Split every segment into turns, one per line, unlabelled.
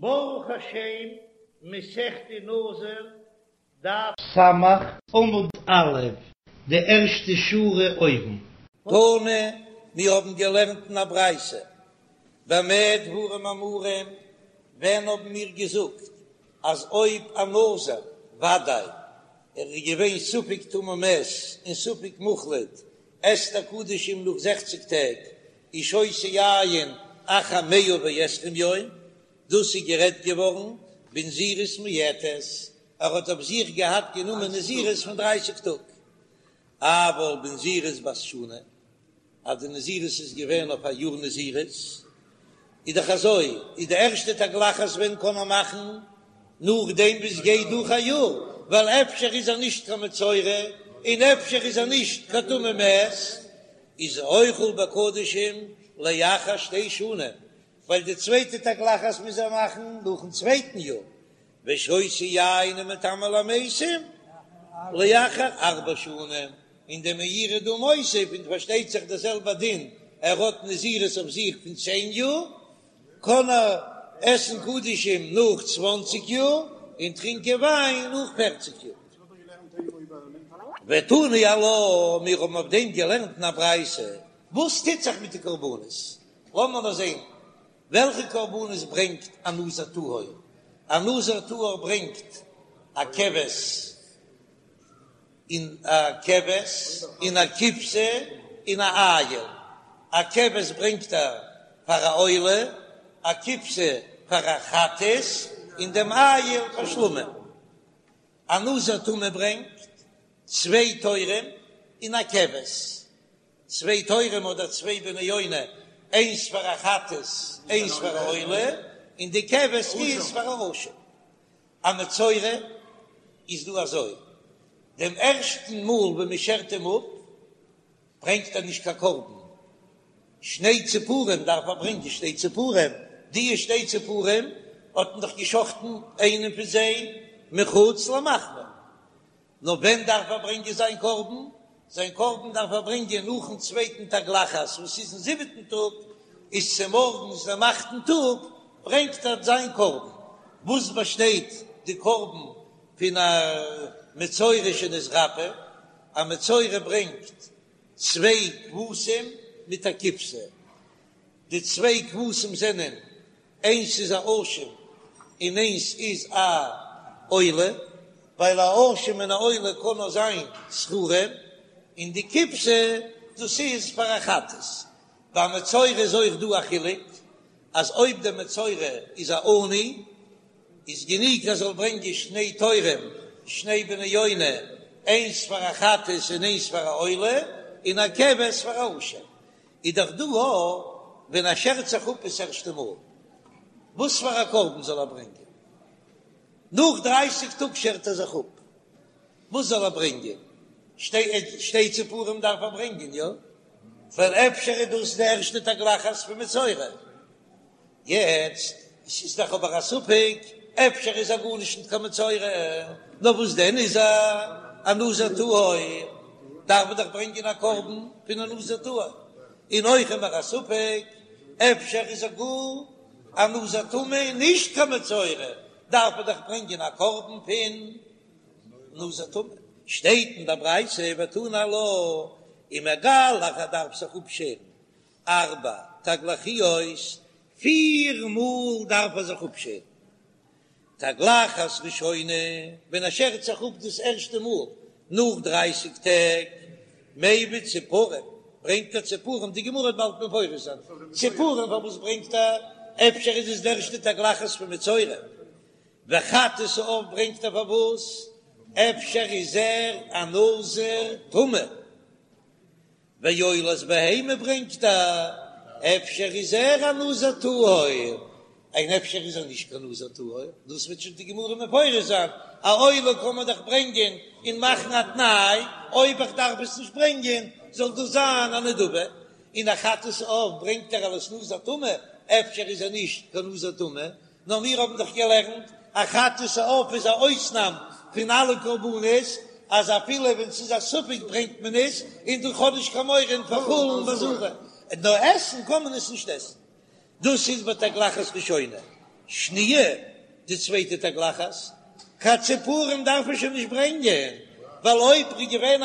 ברוך השם, מסכת נזיר, דף סמך, עמוד א', די ערשטע שורה אויבן.
תנא, מיר האבן געלערנט אין א ברייתא, במה דברים אמורים, ווען האבן מיר געזאגט אז אויב א נזיר, ודאי, ער איז געווען ספק טמא מת און ספק מוחלט, עסט ער קדשים נאך זעכציג טעג, ושותה יין אחר מאה ועשרים יום, דאס איז גערעדט געווארן בנזירות מועטת, ער האט אויף זיך געהאט גענומען נזירות פון דרייסיג טאג, אבל בנזירות בת שנה, אז די נזירות איז געווען אויף א יאר נזירות, איז דאך אזוי, איז די ערשטע תגלחת ווען קען מען מאכן? נאכדעם וואס גייט דורך א יאר, ווייל אפשר איז ער נישט קיין מצורע, און אפשר איז ער נישט קיין טמא מת, איז אוכל בקדשים לאחר שתי שנים, ווייל די צווייטע תגלחת מוז ער מאכן נאכן צווייטן יאר, ושותה יין ומטמא למתים לאחר ארבע שנים, און דער מאירי דא מוסיף, און פארשטייט זיך דער זעלבער דין, ער האט נזירות אויף זיך פון צען יאר, קען ער עסן קדשים נאך צוואנציג יאר, און טרינקען וויין נאך פערציג יאר. ותני עלה, מיר האבן אויף דעם געלערנט אין א ברייתא, וואס טוט זיך מיט די קרבנות? לאמיר נאר זען וועלכע קרבנות ברענגט א נזיר טהור. א נזיר טהור ברענגט א כבש און א כבש און א כבשה און א איל. א כבש ברענגט ער פאר א עולה, א כבשה פאר א חטאת, און דעם איל פאר שלמים. א נזיר טמא ברענגט צוויי תורים און א כבש, צוויי תורים אדער צוויי בני יונה, איינס פאר א חטאת, איינס פאר א עולה, און די כבש איז פאר א אשם. א מצורע איז דא אזוי, דעם ערשטן מאל ווען מען שערט אים אפ, ברענגט ער נישט קיין קרבן, שני ציפורים דארף ער ברענגען שתי ציפורים, די שתי ציפורים האט מען דאך געשחטן איינעם פון זיי מחוץ למחנה, נאר ווען דארף ער ברענגען זיין קרבן? זיין קרבן דארף ער ברענגען נאכן צווייטן תגלחת וואס איז אין זיבעטן טאג, איז צומארגנס דעם אכטן טאג ברענגט ער זיין קרבן, וואס באשטייט די קרבן פון א מצורע שנתרפא, א מצורע ברענגט צוויי כבשים מיט א כבשה, די צוויי כבשים זענען איינס איז א אשם און איינס איז א עולה, ווייל א אשם און א עולה קען נאר זיין זכרים, און די כבשה דאס איז פאר א חטאת. ביי מצורע איז אויך דא א חילוק, אז אויב דער מצורע איז א עני איז גענוג ער זאל ברענגען שני תורים, שני בני יונה, איינס פאר א חטאת און איינס פאר א עולה, און א כבש פאר א אשם. איז דאך דא א ווען ער שערט זיך אפ עס ערשטע מאל, וואס פאר א קרבן זאל ער ברענגען? נאך דרייסיג טאג שערט ער זיך אפ, וואס זאל ער ברענגען? שתי ציפורים דארף ער ברענגען, יא? ווייל אפשר איז דאס די ערשטע תגלחת פון מצורע. יעצט, עס איז דאך אבער א ספק, אפשר איז ער גארנישט ניט קיין מצורע, נאר וואס דען איז ער? א נזיר טהור, דארף מען דאך ברענגען א קרבן פון א נזיר טהור, און אויך איז מיר א ספק, אפשר איז ער גאר א נזיר טמא און נישט קיין מצורע, דארף מען דאך ברענגען א קרבן פון נזיר טמא. שטייט אין דער ברייתא ותני עלה, ומגלח ער דארף זיך אפשערן ארבע תגלחיות, פיר מאל דארף ער זיך אפשערן. תגלחת ראשונה, ווען ער שערט זיך אפ דאס ערשטע מאל נאך דרייסיג טעג, מביא ציפורים, ברענגט ער ציפורים, די גמרא וועט באלד מפרש זיין ציפורים פארוואס ברענגט ער, אפשר איז עס די ערשטע תגלחת פון מצורע, וחטאת העוף ברענגט ער פארוואס, אפשר איז ער א נזיר טמא. ועולת בהמה ברענגט ער, אפשר איז ער א נזיר טהור, און אפשר איז ער נישט קיין נזיר טהור, דאס וועט שוין די גמרא מפרש זיין, א עולה קען מען דאך ברענגען און מאכן א תנאי, אויב איך דארף עס נישט ברענגען זאל דאס זיין א נדבה, און א חטאת העוף ברענגט ער אלס נזיר טמא, אפשר איז ער נישט קיין נזיר טמא, נאר מיר האבן דאך געלערנט אז חטאת העוף איז א אויסנאם פון אלע קרבנות, אז אפילו ווען ס'איז א ספק ברענגט מען עס, און דו האב נישט קיין מורא אין פאר חולין בעזרה, נאר עסן קען מען עס נישט עסן. דאס איז בתגלחת ראשונה. שניה, די צווייטע תגלחת, קיין ציפורים דארף מען שוין נישט ברענגען, ווייל אויב איז געווען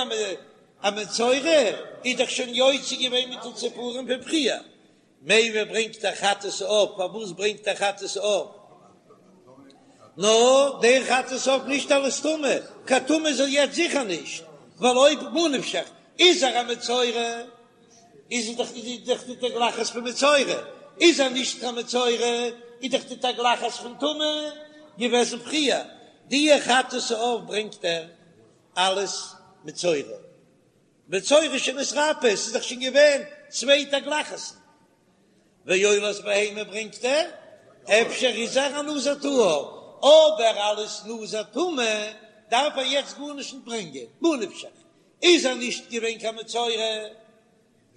א מצורע איז דאך שוין יוצא געווען מיט די ציפורים פון פריער, מביא ברענגט ער חטאת העוף, פארוואס ברענגט ער חטאת העוף? נאר דער חטאת העוף נישט אלס טומאה, קיין טמא איז ער יעצט זיכער נישט, ווייל אויב ממה נפשך איז ער א מצורע, איז ער דאך איז דאך די תגלחת פון מצורע, איז ער נישט קיין מצורע איז דאך די תגלחת פון טומאה געוועזן פריער, די חטאת העוף ברענגט ער אלס מצורע, מצורע שנתרפא, עס איז דאך שוין געווען צוויי תגלחת'ן, ועולת בהמה ברענגט ער, אפשר איז ער א נזיר טהור, אבער אלס נזיר טמא דארף ער יעצט גארנישט נישט ברענגען, ממה נפשך, איז ער נישט געווען קיין מצורע,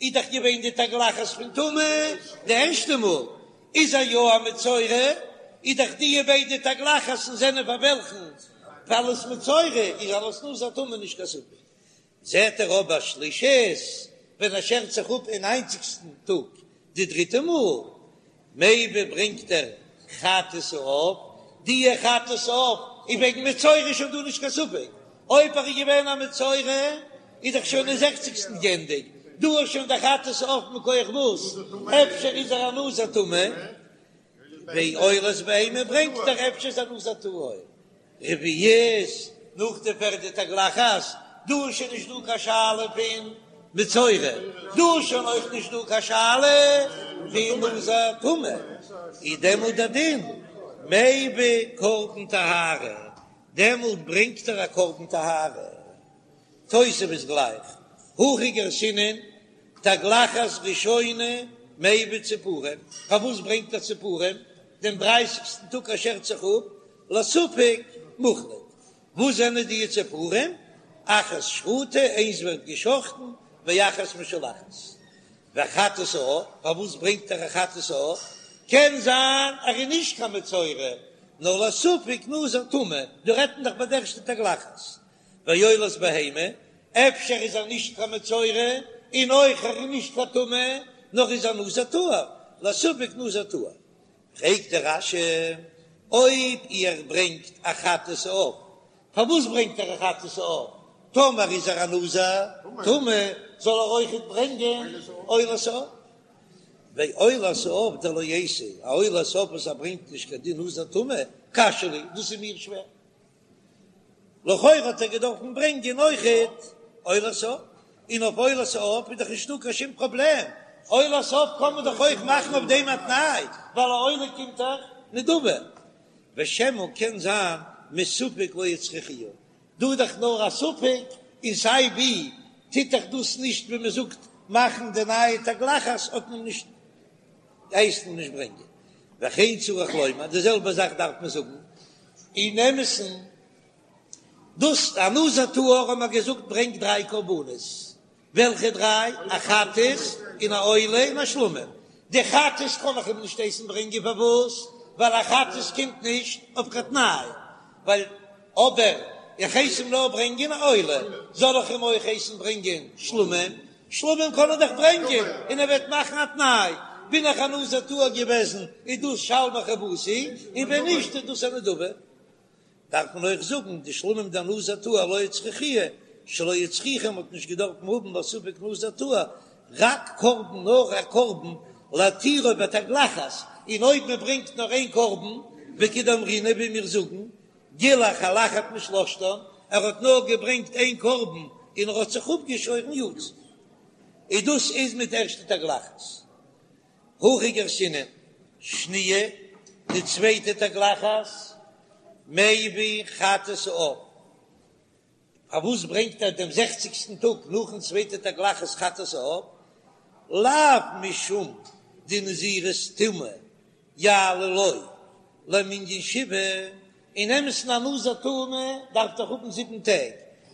איז דאך געווען די תגלחת פון טומאה די ערשטע מאל, איז ער יא א מצורע, איז דאך די ביידע תגלחת'ן זענען פאר וועלכן? פאר אלס מצורע, איז אלס נזיר טמא נישט קיין ספק. זעט ער אבער שלישית ווען ער שערט זיך אפ אין ניינציגסטן טאג די דריטע מאל, מביא ברענגט ער חטאת העוף, די חטאת העוף איז וועגן מצורע איז שוין דא נישט קיין ספק, אויב ער איז געווען א מצורע איז דאך שוין אין זעכציגסטן גענדיגט, דא איז שוין די חטאת העוף מכח וואס? אפשר איז ער א נזיר טמא, ועולת בהמה ברענגט ער אפשר איז א נזיר טהור. רביעית, נאך די פערדע תגלחת, דא איז שוין נישט דא קיין שאלה פון מצורע, דא איז שוין אויך נישט דא קיין שאלה פון נזיר טמא, איז דעמאלט דער דין מביא קרבן טהרה, דעמאלט ברענגט ער א קרבן טהרה. תוספות גלייך, הכי גרסינן, תגלחת ראשונה מביא ציפורים, פארוואס ברענגט ער ציפורים דעם דרייסיגסטן טאג ער שערט זיך אפ, לספק מוחלט, וואס זענען די ציפורים? אחת שחוטה, איינס ווערט געשחטן, ואחת משולחת. וחטאת העוף, פארוואס ברענגט ער א חטאת העוף? קען זיין ער איז נישט קיין מצורע, נאר לספק נזיר טמא, דא רעדט מען דאך ביי די ערשטע תגלחת. ועולת בהמה, אפשר איז ער נישט קיין מצורע, און אויך ער איז נישט קיין טמא, נאר איז א נזיר טהור, לספק נזיר טהור. פרעגט דער רש"י, אויב ער ברענגט א חטאת העוף, פארוואס ברענגט ער א חטאת העוף? טאמער איז ער א נזיר טמא, זאל ער אויכעט ברענגען עולת העוף. ועולת העוף דלא אייתי, א עולת העוף וואס ער ברענגט נישט קיין דין נזיר טמא, קשיא לי, דאס איז מיר שווער. לכאורה האט ער געדארפן ברענגען אויכעט עולת העוף, און אויף עולת העוף איז דאך נישטא קיין שום פראבלעם, עולת העוף קען מען דאך אויך מאכן אויף דעם א תנאי, ווייל א עולה קומט דאך נדבה. ושמא קען זיין מספק לא הצריכוה, דא איז דאך נאר א ספק, און סיי ווי טוט דאך דאס נישט ווי מען זאגט מאכן די נייע תגלחת האט מען נישט הייסט מען נישט ברענגען, וכן צריך לומר, די זעלבע זאך דארף מען זאגן אין אמת'ן, דאס א נזיר טהור האט מען געזאגט ברענגט דריי קרבנות, וועלכע דריי? א חטאת און א עולה און א שלמים, די חטאת קען איך אים נישט הייסן ברענגען פארוואס? ווייל א חטאת קומט נישט אויף קיין תנאי, ווייל אבער איך הייס אים נאר ברענגען א עולה, זאל איך אים אויך הייסן ברענגען שלמים? שלמים קען ער דאך ברענגען און ער וועט מאכן א תנאי, בין איך א נזיר טהור געוועזן איז דאס שלמי חובתי, און ווען נישט איז דאס א נדבה. דארף מען אויך זאגן די שלמים דנזיר טהור לא הצריכוה, שלא הצריכו מ'האט נישט געדארפן האבן לספק נזיר טהור, רק קרבן נאר א קרבן להתירו בתגלחת, און אויב מען ברענגט נאר איין קרבן, וכדאמרינן ווי מיר זאגן, גילח על אחת משלשתן, ער האט נאר געברענגט איין קרבן און ער האט זיך אפגעשוירן יצא. און דאס איז מיט ערשטע תגלחת. הכי גרסינן, שניה, די צווייטע תגלחת, מביא חטאת העוף. פארוואס ברענגט ער דעם זעכציגסטן טאג נאכן צווייטע תגלחת חטאת העוף? לאו משום דנזירות טומאה יעלה לו למנין שבעה, אין אמת'ן א נזיר טמא דארף דאך האבן זיבן טעג,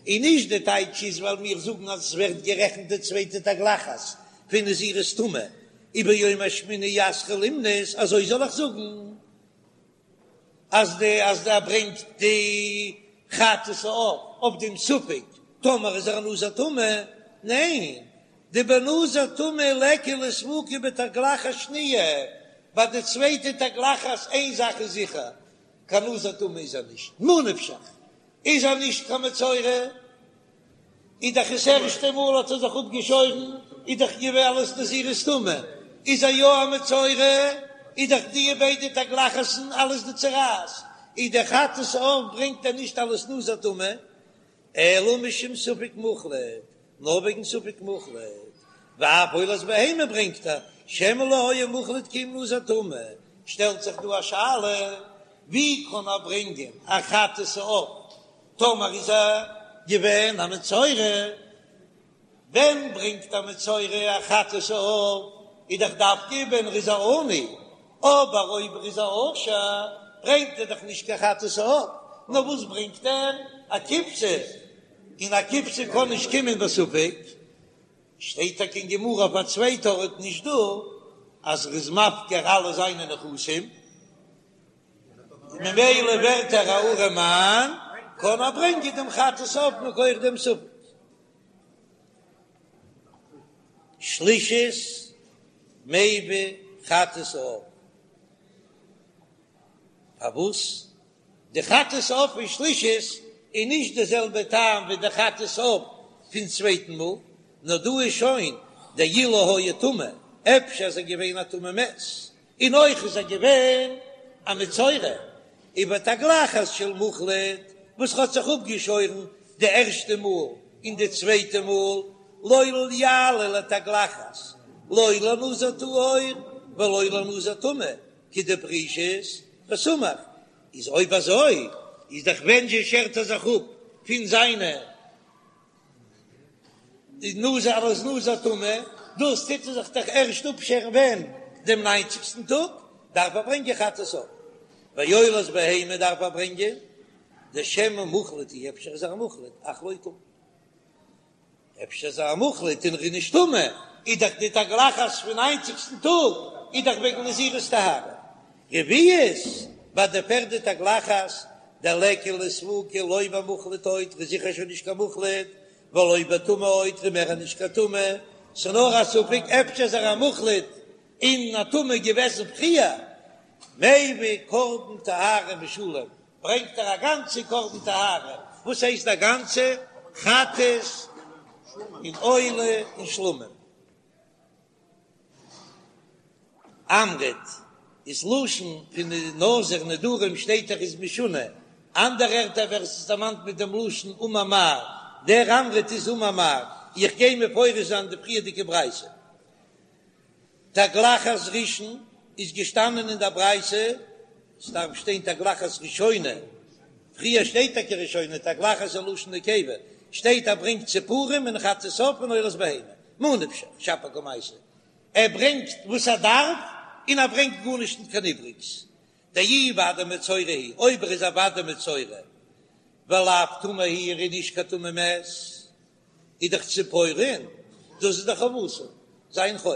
און נישט די טייטש איז ווייל מיר זאגן אז עס ווערט גערעכנט די צווייטע תגלחת פון נזירות טומאה, וביום השמיני יתחיל למנות, אזוי זאל איך זאגן אז די אז ער ברענגט די חטאת העוף אויף דעם ספק טאמער איז ער א נזיר טמא, ניין, דבנזיר טמא ליכא לספוקי בתגלחת שניה. ביי די צווייטע תגלחת איין זאך איז זיכער, קיין נזיר טמא איז ער נישט, ממה נפשך איז ער נישט קיין מצורע, איז דאך עס ערשטע מאל האט ער זיך אפגעשוירן, איז דאך געווען אלס נזירות טומאה, איז ער יא א מצורע, איז דאך די ביידע תגלחת'ן אלס די צרעת, איז די חטאת העוף ברענגט ער נישט אלס נזיר טמא, אלא משום ספק מוחלט, נאר וועגן ספק מוחלט, ואף עולת בהמה ברענגט ער, שמא לא היה מוחלט כי אם נזיר טמא, שטעלט זיך דא א שאלה, ווי קען ער ברענגען א חטאת העוף טאמער איז ער געווען א מצורע? ווען ברענגט א מצורע א חטאת העוף איז דאך דווקא ווען ער איז א עני, אבער אויב ער איז א עושר ברענגט ער דאך נישט קיין חטאת העוף, נאר וואס ברענגט ער? א כבשה, און א כבשה קען נישט קומען בספק. שטייט טאקע אין גמרא אויף א צווייטע ארט נישט דא אז ער איז מפקיר אלע זיינע נכסים, ממילא ווערט ער א ארעמאן, קען ער ברענגען דעם חטאת העוף מכח דעם ספק. שלישית מביא חטאת העוף. פארוואס די חטאת העוף פון שלישית איז נישט די זעלבע טעם ווי די חטאת העוף פון צווייטן מאל, נאר דא איז שוין דאילו היה טמא, אפשר איז ער געווען א טמא מת, און אויך איז ער געווען א מצורע, ובתגלחת של מוחלט וואס האט זיך אפגעשוירן די ערשטע מאל און די צווייטע מאל, לא יעלה לתגלחת לא לנזיר טהור ולא לנזיר טמא, כדפרישית וסמוך, איז אויב אזוי איז דאך ווען זשע שערט ער זיך אפ פון זיינע די נזיר אלס נזיר טמא, דאס טוט ער זיך דאך ערשט אפשערן ווען? דעם ניינציגסטן טאג דארף ער ברענגען חטאת העוף, ועולת בהמה דארף ער ברענגען דשמא מוחלט הוא, אפשר איז ער א מוחלט אך לא טמא. אפשר איז ער א מוחלט און ער איז נישט טמא, איז דאך די תגלחת פון ניינציגסטן טאג איז דאך וועגן נזירות טהרה. רביעית, ביי די פערדע תגלחת, דליכא לספוקי לא במוחלט עוד, ער איז זיכער שוין נישט קיין מוחלט, ולא בטמא עוד, ער איז מער נישט קיין טמא, ס'נאר א ספק אפשר איז ער א מוחלט און א טמא געוועזן פריער, מביא קרבן טהרה משולם, ברענגט ער א גאנצע קרבן טהרה, וואס הייסט א גאנצע? חטאת און עולה און שלמים. אמרת איז לשון פון די נזיר נדרים שטייט דאך איז משונה, אנדערע ערטער ווערט עס דערמאנט מיט דעם לשון אמר מר, דער אמרת איז אמר מר, איך גיי מפרש זיין די פריערדיגע ברייתא. תגלחת ראשון איז געשטאנען אין דער ברייתא, עס דארף שטיין תגלחת ראשונה, פריער שטייט טאקע ראשונה, תגלחת איז לשון נקבה, שטייט ער ברענגט ציפורים און חטאת עוף און עולת בהמה, מה נפשך שפיר קמייתא, ער ברענגט וואס ער דארף און ער ברענגט גארנישט ניט קיין איבריגס, דאי ודאי מצורע הוא, אויב ער איז א ודאי מצורע, ולאו טמא הוא, ער איז נישט קיין טמא מת. איז דאך ציפורין, דאס איז דאך חובתו, זיין חוב.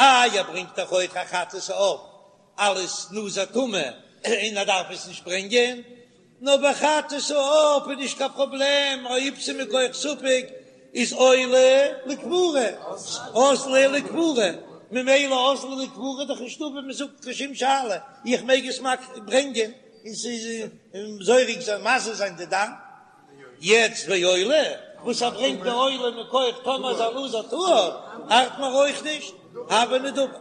איי ער ברענגט דאך אויך א חטאת העוף אלס נזיר טמא און ער דארף עס נישט ברענגען, נאר ביי חטאת העוף איז נישט קיין פראבלעם אויב ס'איז מכח ספק איז עולה לכפרה, אזלא לכפרה, ממילא אזלא לכפרה איז דאך נישטא ווי מ'זאגט קיין שום שאלה, איך מעג עס ברענגען און ס'איז זורק זיין מזה זיין די דם. יעצט ועולה, וואס ער ברענגט די עולה מכח טאמער איז א נזיר טהור, ארט מיר אויך נישט, הוה נדבה.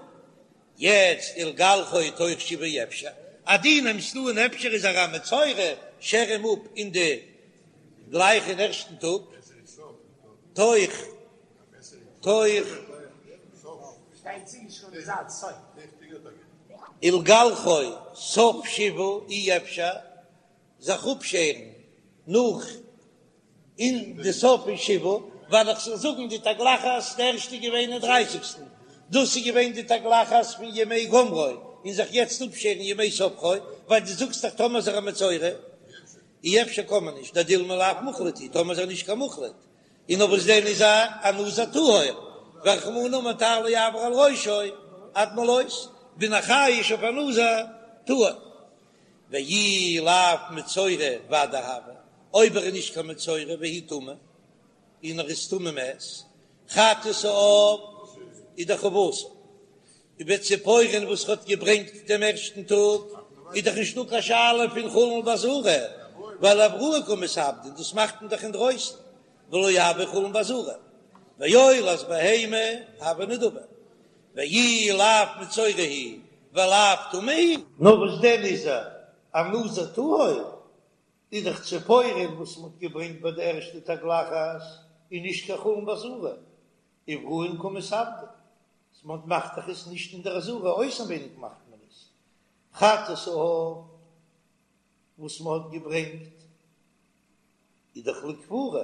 יעצט ולגלחו תוך שבעה אפשר, אז דו נעמסט אן אפשר איז ער א מצורע, שער אים אפ אין די גלייך אין ערשטן טאג, תוך תוך ולגלחו סוף שבעה אי אפשר. זיך אפשערן נאך אין די סוף פון שבעה, ווייל איך זאל זאגן די תגלחת די ערשטע איז געווען אין דרייסיגסטן, דאס איז געווען די תגלחת פון ימי גומרו, און זיך יעצט אפשערן ימי ספרו, ווייל דו זאגסט דאך טאמער איז ער א מצורע, אי אפשר קען מען נישט, דדילמא לאו מוחלט הוא, טאמער איז ער נישט קיין מוחלט, און נאר וואס דען איז ער א נזיר טהור, ורחמנא אמר תער לא יעבור על ראשו עד מלאות, בין איך חייש אויף א נזיר טהור. ואי לאו מצורע ודאי הוי, אויב ער איז נישט קיין מצורע והוא טמא, און ער איז טמא מת, חטאת העוף איז דאך חובתו. ובציפורין וואס ער האט געברענגט דעם ערשטן טאג, איז דאך נישטא קיין שאלה פון חולין בעזרה, ווייל אבראי קא מתעבדין, דאס מאכט מען דאך אינדרויסן, ולא הוי חולין בעזרה, ועולת בהמה הוי נדבה, ואי לאו מצורע הוא ולאו טמא הוא.
נאר וואס דען איז ער א נזיר טהור? איז דאך ציפורין וואס מ'האט געברענגט ביי די ערשטע תגלחת איז נישט קיין חולין בעזרה, אבראי קא מתעבדין, מ'מאכט דאך עס נישט אין דער עזרה, אויסנווייניג מאכט מען עס, חטאת העוף וואס מ'האט געברענגט איז דאך לכפרה,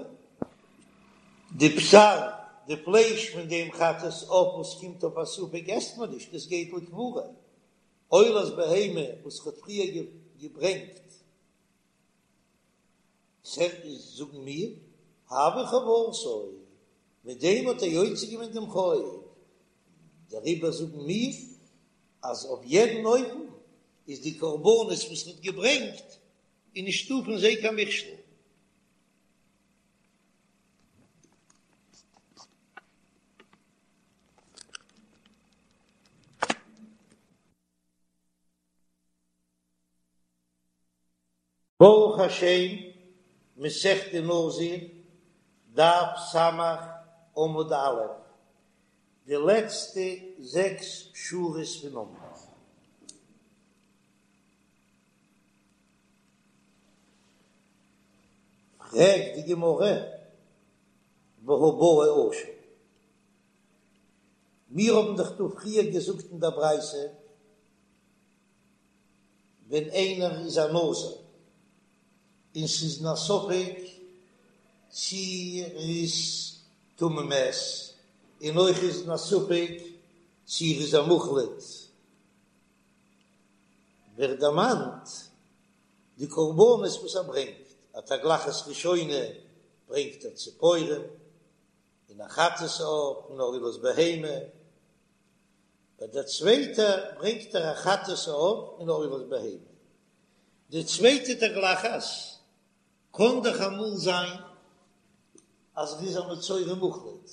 די בשר, די פלייש פון דעם חטאת העוף וואס קומט אויף א ספק עסט מען נישט, עס גייט לכפרה, עולת בהמה וואס כ'האט פריער געברענגט, זאגן מיר, הוה חובתו, מיט דעם האט ער יוצא געווען דעם חוב, דעריבער זאגן מיר אז אויף יעדן אופן איז די קרבנות וואס מ'האט געברענגט איז נישטא פון זיי קיין מכשול.
ברוך השם, מסכת נזיר, דף ס', עמוד א', די לעצטע זעקס שורות פון עמוד. פרעגט די גמרא, והא בעי אשם, מיר האבן דאך דא פריער געזאגט אין דער ברייתא, ווען איינער איז א נזיר און ס'איז אין א ספק צי ער איז טמא מת, און אויך איז אין א ספק צי ער איז א מוחלט, ווערט דערמאנט די קרבנות וואס ער ברענגט, א תגלחת ראשונה ברענגט ער ציפורים, און א חטאת העוף און א עולת בהמה, ביי דער צווייטע ברענגט ער א חטאת העוף און א עולת בהמה. די צווייטע תגלחת קען דאך אמאל זיין אז ער איז א מצורע מוחלט,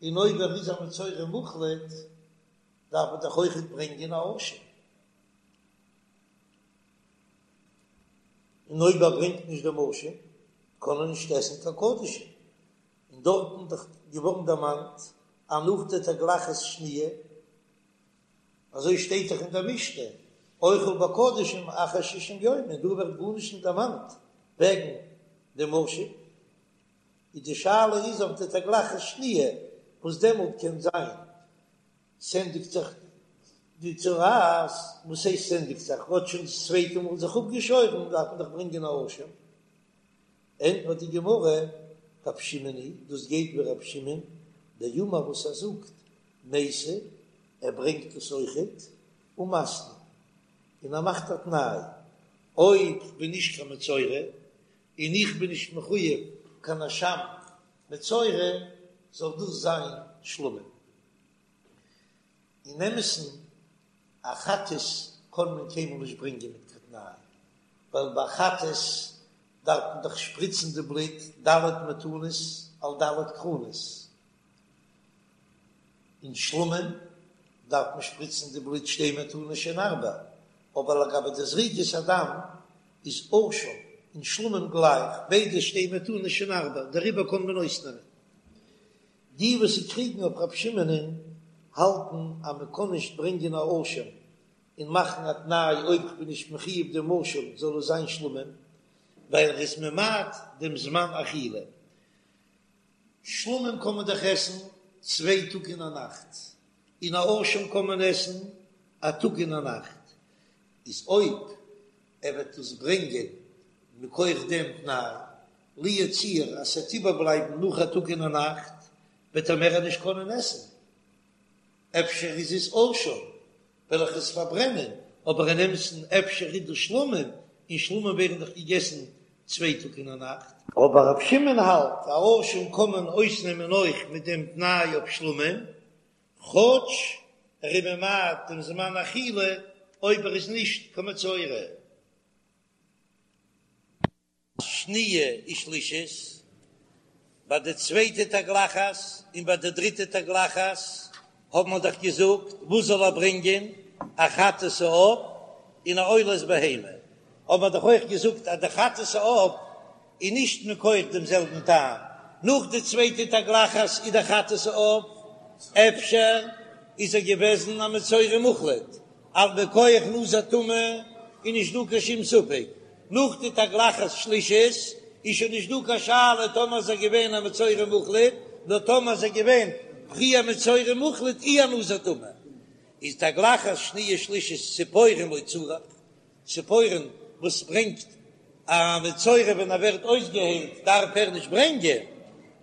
און אויב ער איז א מצורע מוחלט דארף ער דאך אויכעט ברענגען א אשם, און אויב ער ברענגט נישט דעם אשם קען ער נישט עסן קיין קדשים. און דארטן דאך געווארן דערמאנט אז נאך די תגלחת שניה, אזוי שטייט דאך אין דער משנה, אוכל בקדשים אחר שישים יום, און דא ווערט גארנישט נישט דערמאנט וועגן דעם אשם, איז די שאלה איז אויף די תגלחת שניה, וואס דעמאלט קען זיין ס'ענדיגט זיך די צרעת, וואס הייסט ס'ענדיגט זיך, האט שוין דאס צווייטע מאל זיך אפגעשוירן, דארף מען דאך ברענגען א אשם. ענטפערט די גמרא, רב שמעון היא, דאס גייט ווי רב שמעון, דאמר וואס ער זאגט, מייתי, ער ברענגט עס אויכעט, ומתני, און ער מאכט א תנאי, אויב כ'בין נישט קיין מצורע, און איך בין נישט מחויב קיין אשם מצורע, זאל דאס זיין שלמים. אין אמת'ן, א חטאת קען מען קיינמאל נישט ברענגען מיט קיין תנאי, ווייל ביי חטאת דארף מען דאך שפריצן די בלוט ד' מתנות על ד' קרנות, און שלמים דארף מען שפריצן די בלוט שתי מתנות שהן ארבע, אבער לגבי די זריקת הדם איז אשם און שלמים גלייך, ביידע שתי מתנות שהן ארבע, דעריבער קען מען אויסנעמען. די וואס קריגן אויף רב שמעונ'ען האלטן אז מען קען נישט ברענגען א אשם און מאכן א תנאי אויב כ'בין נישט מחויב דעם אשם זאל עס זיין שלמים, ווייל ער איז ממעט דעם זמן אכילה. שלמים קען מען דאך עסן צוויי טאג און א נאכט, און א אשם קען מען עסן א טאג און א נאכט, איז אויב ער וועט עס ברענגען מכח דעם תנאי, לו יצוייר אז ס'וועט איבערבלייבן נאך א טאג און א נאכט, וועט ער מער נישט קענען עסן. אפשר איז עס אשם, וועל איך עס פארברענען, אבער אין אמת'ן אפשר איז דאס שלמים, און שלמים ווערן דאך געגעסן צוויי טאג און א נאכט. אבער רב שמעון האלט, א אשם קען מען אויסנעמען אויך מיט דעם תנאי אויף שלמים, כאטש ער איז ממעט דעם זמן אכילה אויב ער איז נישט קיין מצורע. שניה ושלישית, ביי די צווייטע תגלחת און ביי די דריטע תגלחת. האט מען דאך געזאגט וואס זאל ער ברענגען, א חטאת העוף און א עולת בהמה, האט מען דאך אויך געזאגט אז די חטאת העוף איז נישט מכח דעם זעלבן טעם, נאך די צווייטע תגלחת איז די חטאת העוף, אפשר איז ער געוועזן א מצורע מוחלט, אבער מכח נזיר טמא איז נישט דא קיין שום ספק, נאך די תגלחת שלישית איז שוין נישט דא קיין שאלה טאמער איז ער געווען א מצורע מוחלט, נאר טאמער איז ער געווען פריער מצורע מוחלט אי א נזיר טמא, איז תגלחת שניה שלישית ציפורים לא צריך, ציפורים וואס ברענגט א מצורע ווען ער ווערט אויסגעהיילט דארף ער נישט ברענגען,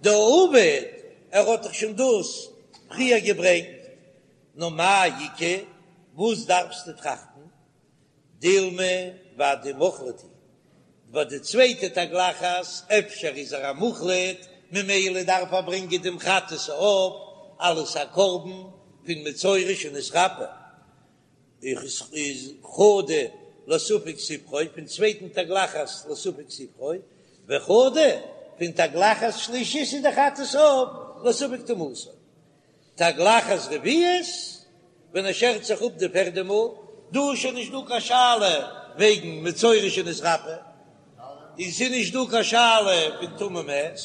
דעביד ער האט דאך שוין דאס פריער געברענגט, נאר מאי איכא וואס דארפסטו טראכטן? דילמא ודאי מוחלט הוא, ביי די צווייטע תגלחת אפשר איז ער א מוחלט ממילא דארף ער ברענגען דעם חטאת העוף אלס א קרבן פון מצורע שנתרפא, איז חדא לספק ספרו פון צווייטן תגלחת לספק ספרו, וחדא פון תגלחת שלישית איז די חטאת העוף לספק טומאתו. תגלחת רביעית, ווען ער שערט זיך אפ די פערדע מאל, דא איז שוין נישט דא קיין שאלה וועגן מצורע שנתרפא, און ס'איז נישט דא קיין שאלה פון טמא מת,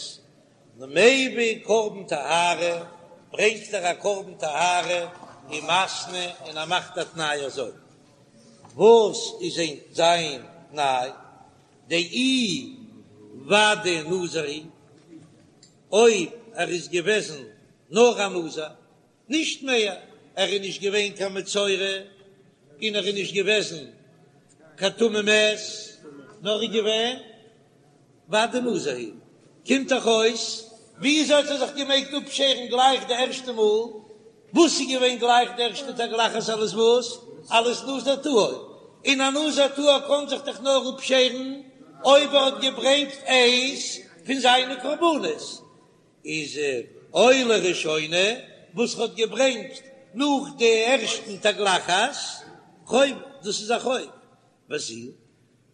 מביא קרבן טהרה, ברענגט ער א קרבן טהרה ומתנה און ער מאכט א תנאי אזוי, וואס איז זיין תנאי? דאי ודאי נזיר הוא, אויב ער איז געוועזן נאר א נזיר, נישט מער, ער איז נישט געווען קיין מצורע, און ער איז נישט געוועזן קיין טמא מת, נאר ער איז געווען ודאי נזיר הוא, קומט דאך אויס, וויאזוי האט ער זיך געמעגט אפשערן גלייך די ערשטע מאל? וואס איז געווען גלייך די ערשטע תגלחת אלס וואס? אלס נזיר טהור, און א נזיר טהור קען זיך דאך נאר אפשערן אויב ער האט געברענגט איינס פון זיינע קרבנות, איז עולה ראשונה וואס ער האט געברענגט נאך די ערשטן תגלחת חוב, דאס איז א חוב, וזו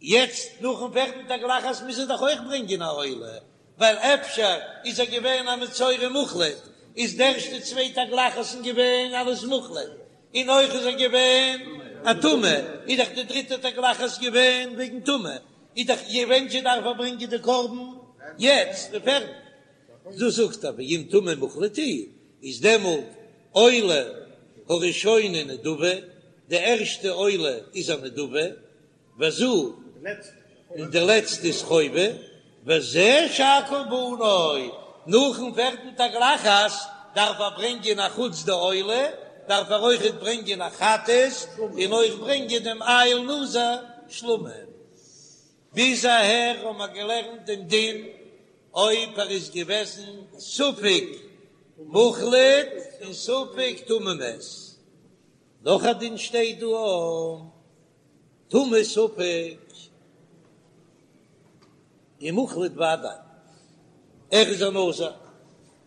יעצט נאכן פערטן תגלחת מוז ער דאך אויך ברענגען א עולה, ווייל אפשר איז ער געווען א מצורע מוחלט, איז די ערשטע צוויי תגלחת'ן געווען אלס מוחלט, און אויך איז ער געווען א טמא, איז דאך די דריטע תגלחת געווען וועגן טומאה, איז דאך ווען זשע דארף ער ברענגען די קרבן יעצט די פערטע. דאס זאגט ער ואם טמא מוחלט הוא, איז דעמאלט עולה הראשונה נדבה, די ערשטע עולה איז א נדבה, וזו, און די לעצטע איז חובה, וזה שאר קרבנו, נאכן פערטן תגלחת דארף ער ברענגען א חוץ די עולה, דארף ער אויכעט ברענגען א חטאת, און אויך ברענגען דעם איל נזיר שלמים. ביז אהער האבן מיר געלערנט דעם דין אויב ער איז געוועזן ספק מוחלט און ספק טמא מת. נאך א דין שטייט דא טמא ספק און מוחלט ודאי, ער איז א נזיר,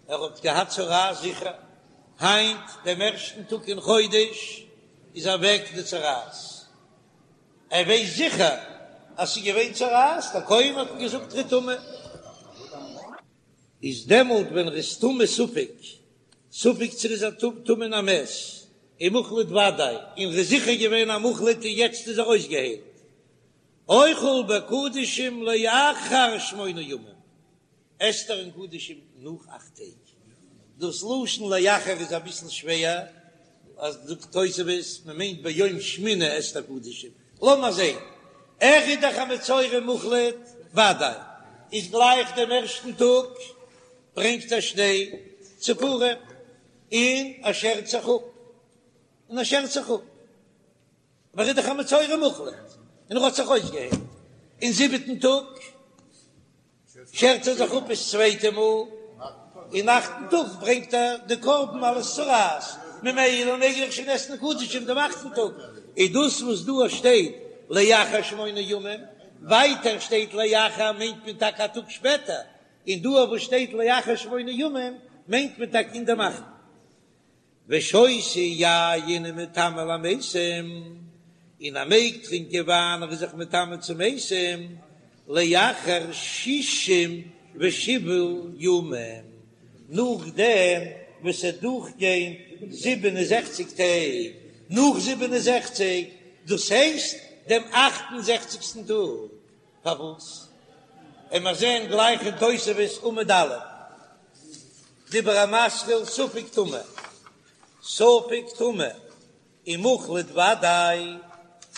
ער האט געהאט צרעת זיכער, היינט דעם ערשטן טאג אין חודש איז אוועק די צרעת, ער ווייסט זיכער אז ס'איז געווען צרעת, דער כהן האט אים געזאגט ער איז טמא. איז דעמאלט ווען ער איז טמא ספק, ספק צו ער איז א טמא אין א מת, און מוחלט ודאי, און ער איז זיכער געווען א מוחלט און יעצט איז ער אויסגעהיילט, אוכל בקדשים לאחר שמונה ימים, עסט ער אין קדשים נאך אכט טעג. דאס לשון לאחר איז אביסל שווער, אז זאגט תוספות מען מיינט ביום שמיני עסט ער קדשים, לאמיר זען, ער איז דאך א מצורע מוחלט ודאי, איז גלייך דעם ערשטן טאג ברענגט ער שתי ציפורים און ער שערט זיך אפ, און ער שערט זיך אפ, אבער ער איז דאך א מצורע מוחלט און ער האט זיך אויסגעהיילט אין זיבעטן טאג. שערט ער זיך אפ עס צווייטע מאל, אין אכטן טאג ברענגט ער די קרבן אלס צרעת, ממילא מעג ער שוין עסן קדשים דעם אכטן טאג, איז דאס וואס דא שטייט לאחר שמונה ימים, ווייטער שטייט לאחר מיינט מען טאקע א טאג שפעטער, און דא וואס שטייט לאחר שמונה ימים מיינט מען טאקע אין דעם אכטן. ושותה יין ומטמא למתים, און ער מעג טרינקען וויין ער איז זיך מטמא צו מתים, לאחר שישים ושבעה ימים, נאכדעם. ווען ס'וועט דורכגיין 67 טעג, נאך 67, דאס הייסט דעם אכט און זעכציגסטן טאג. פארוואס? עמער זען גלייך אין תוספות עמוד א', דיבור המתחיל ספק טמא, ספק טמא ומוחלט ודאי,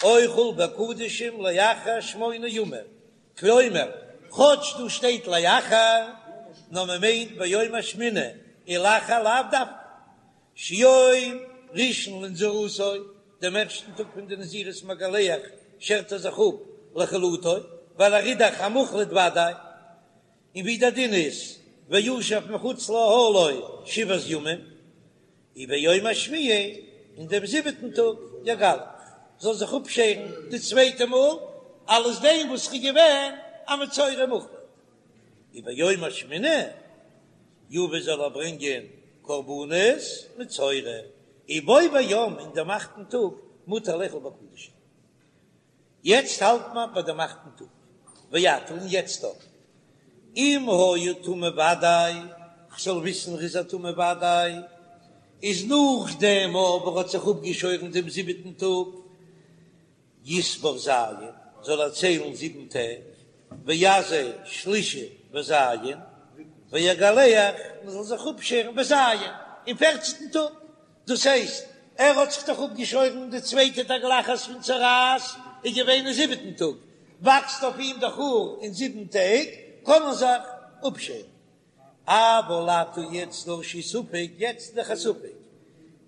אוכל בקדשים לאחר שמונה ימים, כלומר, כאטש דא שטייט לאחר, נאר מען מיינט ביום השמיני, ולאחר לאו דווקא, שיום ראשון לנזירותו, דעם ערשטן טאג פון די נזירות מגלח שערט ער זיך אפ לחלוטו, ווייל ער איז דאך א מוחלט ודאי, און ווי דער דין איז וישב מחוץ לאהלו שבעת ימים, וביום השביעי, אין דעם זיבעטן טאג יגלח, זאל זיך אפשערן די צווייטע מאל, אלס דעם וואס ער איז געווען א מצורע מוחלט. וביום השמיני יביא זאל ער ברענגען קרבנות מצורע, ובו ביום אין דעם אכטן טאג מותר לאכול בקדשים. יעצט האלט מען ביי דעם אכטן טאג, ועתה און יעצט אויך, אם היה טמא ודאי, כ'זאל וויסן ר'איז א טמא ודאי, איז נאכדעם אבער האט זיך אפגעשוירן דעם זיבעטן טאג, יספור ז', זאל ער ציילן זיבן טעג, ויזה שלישי בז', ויגלח, מען זאל זיך אפשערן בז', אין פערצנטן טאג, דאס הייסט, ער האט זיך דאך אפגעשוירן די צווייטע תגלחת פון צרעת איז געווען אין זיבעטן טאג, וואקסט אויף אים דאך האר אין זיבן טעג, קען מען זיך אפשערן. אבל עתה יעצט דא שהוא ספק, יעצט איז דאך א ספק,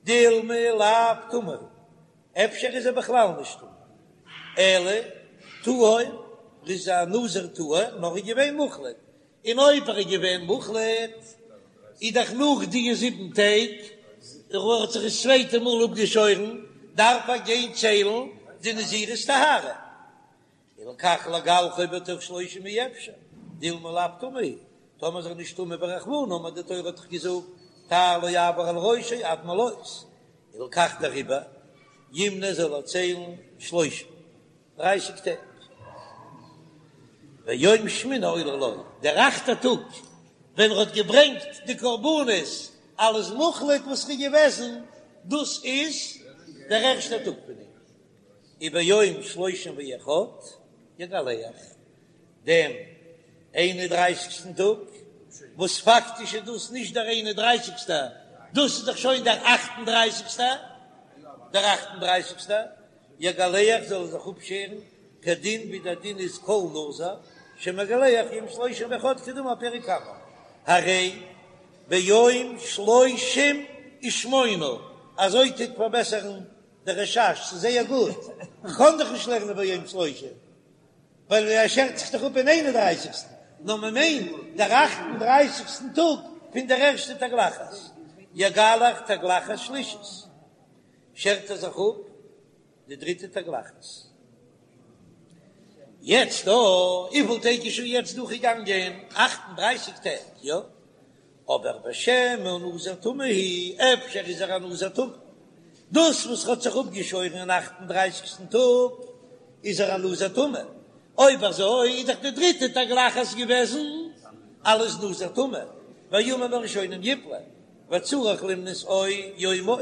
דילמא לאו טמא הוא, אפשר איז ער בכלל נישט טמא, אלא טהור, איז א נזיר טהור, נאר ער איז געווען מוחלט, און אויב ער איז געווען מוחלט, איז דאך נאך די זיבן טעג, ער האט זיך דאס צווייטע מאל אפגעשוירן, דארף ער גיין ציילן די נזירות טהרה. הלכך לגלחו בתוך שלושים אי אפשר, דילמא לאו טמא הוא, טאמער איז ער נישט טמא ורחמנא אמר די תורה האט דאך געזאגט תער לא יעבור על ראשו עד מלאות, הלכך דעריבער ימנה זאל ער ציילן שלושים, דרייסיג טעג. ויום שמיני עולה לו, דער אכטער טאג ווען ער האט געברענגט די קרבנות אלס מוחלט וואס איז געוועזן, דאס איז דער ערשטער טאג פון אים. וביום שלושים ואחד יגלח, דעם איין און דרייסיגסטן טאג, וואס פאקטיש איז דאס נישט דער איין און דרייסיגסטער, דאס איז דאך שוין דער אכט און דרייסיגסטער, דער אכט און דרייסיגסטער, יגלח זאל ער זיך אפשערן, כדין ווי דער דין איז כל נזיר שמגלח יום שלושים ואחד כדאמר פרק קמא, הרי ביום שלושים ושמונה, אזוי טוט פארבעסערן דער רש"ש, ס'איז זייער גוט, כ'קען דאך נישט לערנען ביום שלושים, ווייל ער שערט זיך דאך אפ אין איין און דרייסיגסטן, נאר מען מיינט דער אכט און דרייסיגסטן טאג פון דער ערשטע תגלחת, יגלח תגלחת שלישית, שערט ער זיך אפ די דריטע תגלחת. יעצט דא, וויפיל טעג איז שוין יעצט דורכגעגאנגען? אכט און דרייסיג טעג, יא? אבער ושמא נזיר טמא הוא, אפשר איז ער א נזיר טמא, דאס וואס האט זיך אפגעשוירן אין אכט און דרייסיגסטן טאג איז ער א נזיר טמא, אויב אזוי איז דאך די דריטע תגלחת געוועזן אלס נזיר טמא, והימים הראשונים יפלו, וצריך למנות או יום עוד,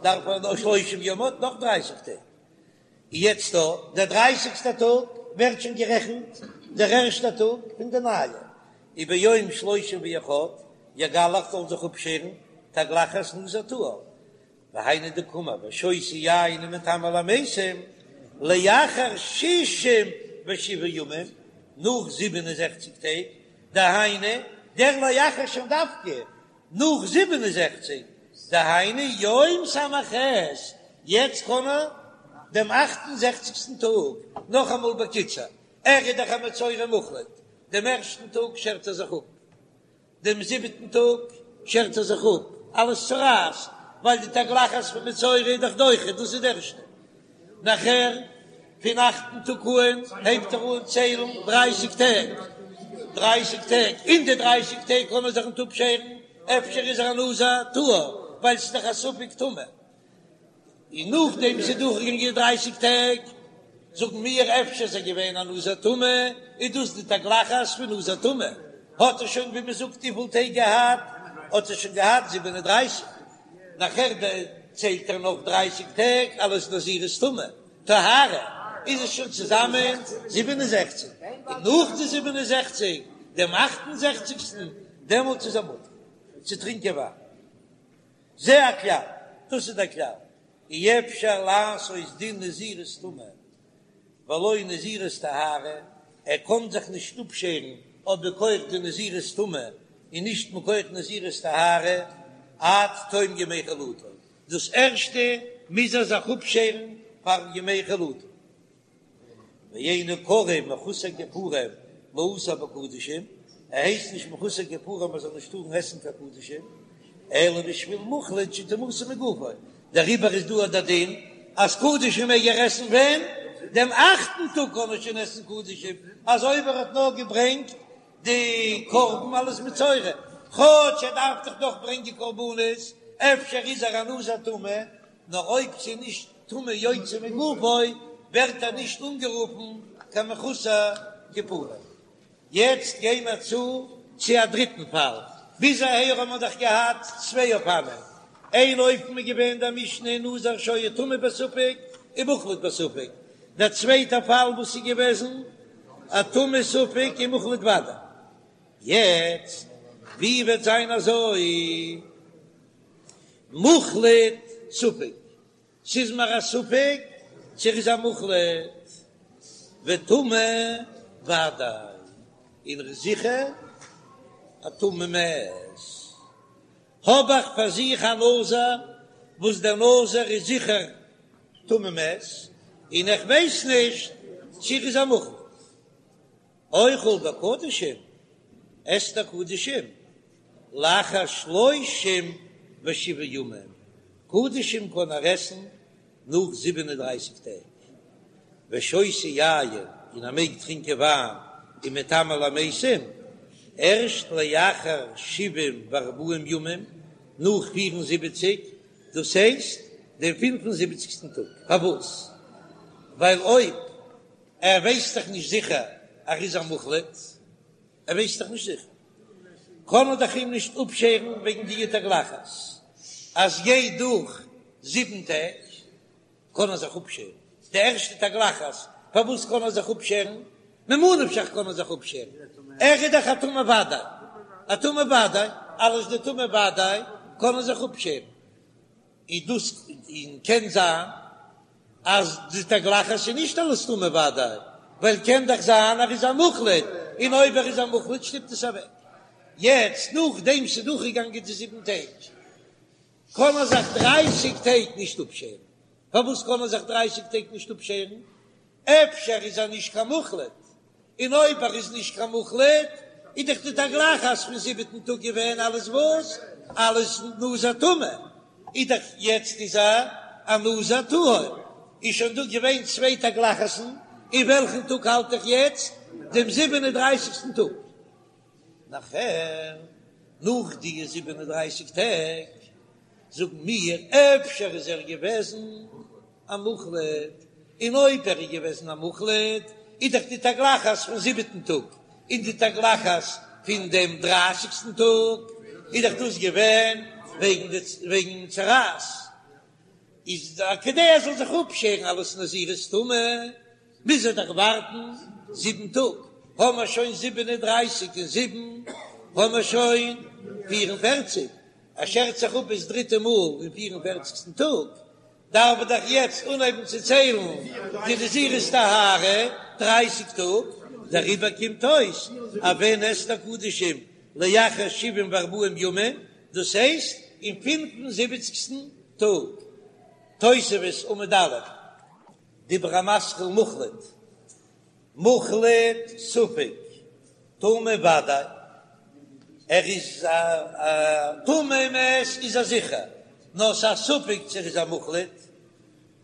דארף ער נאך שלושים יום עוד נאך דרייסיג טעג. יעצט דא, דער דרייסיגסטער טאג ווערט שוין גערעכנט דער ערשטער טאג פון די נייע, וביום שלושים ואחד יגלח זאל זיך אפשערן תגלחת נזיר טהור, והיינו דקאמר ושותה יין ומטמא למתים לאחר שישים ושבעה ימים, נאך זיבן און זעכציג טעג, דהיינו דער לאחר שוין דווקא נאך 67, דהיינו יום ס"ח, יעצט קען ער דעם אכט און זעכציגסטן טאג, נאכאמאל בקיצור, ער איז דאך א מצורע מוחלט, דעם ערשטן טאג שערט ער זיך אפ, דעם זיבעטן טאג שערט ער זיך אפ, אלס צרעת, ווייל די תגלחת פון מצורע איז דאך דוחה, דאס איז די ערשטע. נאכער פון אכטן טאג אן הייבט ער אן ציילן דרייסיג טעג, דרייסיג טעג, אין די דרייסיג טעג קען מען זיך ניט אפשערן, אפשר איז ער א נזיר טהור, ווייל ס'איז דאך א ספק טומאה, און נאכדעם ס'איז דורכגעגאנגען די דרייסיג טעג, זאגן מיר אפשר איז ער געווען א נזיר טמא, איז דאס די תגלחת פון נזיר טמא, האט ער שוין ווי מ'זאגט וויפיל טעג געהאט? האט ער שוין געהאט 37, נאכער ציילט ער נאך דרייסיג טעג אלס נזירות טומאה, טהרה, איז עס שוין צוזאמען 67, און נאך די 67, דעם אכט און זעכציגסטן, דעמאלטס איז ער מותר צו טרינקען וויין. זה הכלל, דאס איז דער כלל, אי אפשר לעשות דין נזירות טומאה ולא נזירות טהרה, ער קען זיך נישט אפשערן אויב מכח די נזירות טומאה און נישט מכח נזירות טהרה עד תום ימי חלוטו, דאס ערשטע מוז ער זיך אפשערן פאר ימי חלוטו. ואינו קרוי מחוסר כיפורים לאסור בקדשים, ער הייסט נישט מחוסר כיפורים ער זאל נישט טארן עסן קיין קדשים, אלא בשביל מוחלט שטומאתו מגופו, דעריבער איז דא דער דין אז קדשים מעג ער עסן ווען? דעם אכטן טאג קען ער שוין עסן קדשים, אזוי ווי ער האט נאר געברענגט די קרבן אלס מצורע, כאטש ער דארף דאך נאך ברענגען קרבנות, אפשר איז ער א נזיר טמא, נאר אויב ס'איז נישט טומאה יוצא מגופו ווערט ער נישט אנגערופן קיין מחוסר כיפורים. יעצט גיי מיר צו צו א דריטן פאל, ביז אהער האבן מיר דאך געהאט צוויי אופנים, איין אופן איז געווען דער משנה נזיר שהיה טמא בספק ומוחלט בספק, דער צווייטער פאל וואס איז געוועזן א טמא ספק ומוחלט ודאי. יעצט ווי וועט זיין אזוי מוחלט ספק? ס'איז מיר א ספק צו ער איז א מוחלט וטמא ודאי, און ער איז זיכער א טמא מת. האב איך פאר זיך א נזיר וואס דער נזיר איז זיכער טמא מת, און איך ווייס נישט צו ער איז א מוחלט. אוכל בקדשים, עסט ער קדשים, לאחר שלושים ושבעה ימים, קדשים קען ער עסן נאך זיבן און דרייסיג טעג, ושותה יין, און ער מעג טרינקען וויין, ומטמא למתים, ערשט לאחר שבעים וארבעים ימים, נאך פיר און זיבעציג, דאס הייסט דעם פינף און זיבעציגסטן טאג, פארוואס? ווייל אויב ער ווייסט דאך נישט זיכער אז ער איז א מוחלט, ער ווייסט דאך נישט זיכער, קען מען דאך אים נישט אפשערן וועגן די תגלחת, אז גייט דורך זיבן טעג קען ער זיך אפשערן, די ערשטע תגלחת, פארוואס קען ער זיך אפשערן? ממה נפשך קען ער זיך אפשערן, ער איז דאך א טמא ודאי, א טמא ודאי, אלס די טמא ודאי קען ער זיך אפשערן, איז דאס און קען זיין אז די תגלחת איז נישט אלס טמא ודאי, ווייל קען דאך זיין ער איז א מוחלט, און אויב ער איז א מוחלט שטופט עס אוועק. יעצט נאכדעם ס'איז דורכגעגאנגען די זיבן טעג, קען ער זיך דרייסיג טעג נישט אפשערן. פארוואס קען ער זיך דרייסיג טעג נישט אפשערן? אפשר איז ער נישט קיין מוחלט, און אויב ער איז נישט קיין מוחלט, איז דאך די תגלחת פון זיבעטן טאג געווען אלס וואס? אלס נזיר טמא, איז דאך יעצט איז ער א נזיר טהור, איז שוין דא געווען צוויי תגלחת'ן, אין וועלכן טאג האלט איך יעצט? דעם זיבן און דרייסיגסטן טאג. נאכער, נאך די זיבן און דרייסיג טעג, זאגן מיר, אפשר איז ער געוועזן א מוחלט, און אויב ער איז געוועזן א מוחלט, איז דאך די תגלחת פון זיבעטן טאג און די תגלחת פון דעם דרייסיגסטן טאג, איז דאך דאס געווען וועגן די וועגן צרעת, איז כדי ער זאל זיך אפשערן אלס נזירות טומאה, מוז ער דאך ווארטן זיבן טאג, האמער שוין זיבן און דרייסיג און זיבן, האמער שוין פיר און פערציג, ער שערט זיך אפ דאס דריטע מאל אין פיר און פערציגסטן טאג, דארף ער דאך יעצט אנהייבן צו ציילן די נזירות טהרה דרייסיג טאג, דעריבער קומט אויס אז ווען עסט ער קדשים לאחר שבעים וארבעים ימים, דאס הייסט אין פינף און זיבעציגסטן טאג. תוספות עמוד א', דיבור המתחיל מוחלט, מוחלט ספק, טמא ודאי, ער איז א טמא מת איז ער זיכער, נאר ס'איז א ספק צו ער איז א מוחלט,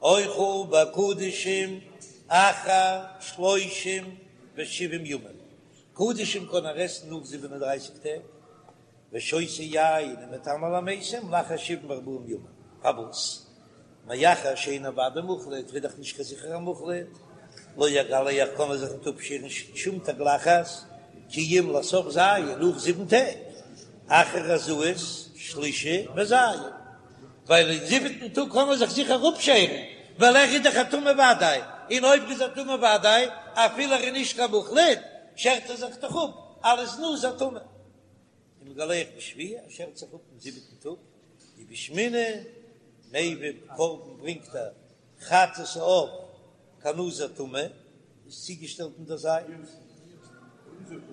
אוכל בקדשים אחר שלושים ושבעים ימים, קדשים קען ער עסן נאך זיבן און דרייסיג טעג, ושותה יין ומטמא למתים לאחר שבעים וארבעים ימים, פארוואס? מאחר שאינו ודאי מוחלט, איז דאך נישט קיין זיכערע מוחלט, לא יגלח קען ער זיך ניט אפשערן שום תגלחת, כי אם לסוף ז' נאך זיבן טעג, אחר הזאות. שלישי וז', ווייל אין זיבעטן טאג קען מען זיך זיכער אפשערן, ווייל ער איז דאך א טמא ודאי, און אויב ער איז א טמא ודאי, אפילו ער איז נישט קיין מוחלט, שערט ער זיך דאך אפ אלס נזיר טמא. ומגלח בשביעי, ער שערט זיך אפ אין זיבעטן טאג, ובשמיני מביא קרבן ברענגט ער חטאת העוף כנזיר טמא, איז צוגעשטעלט אין דער זייט,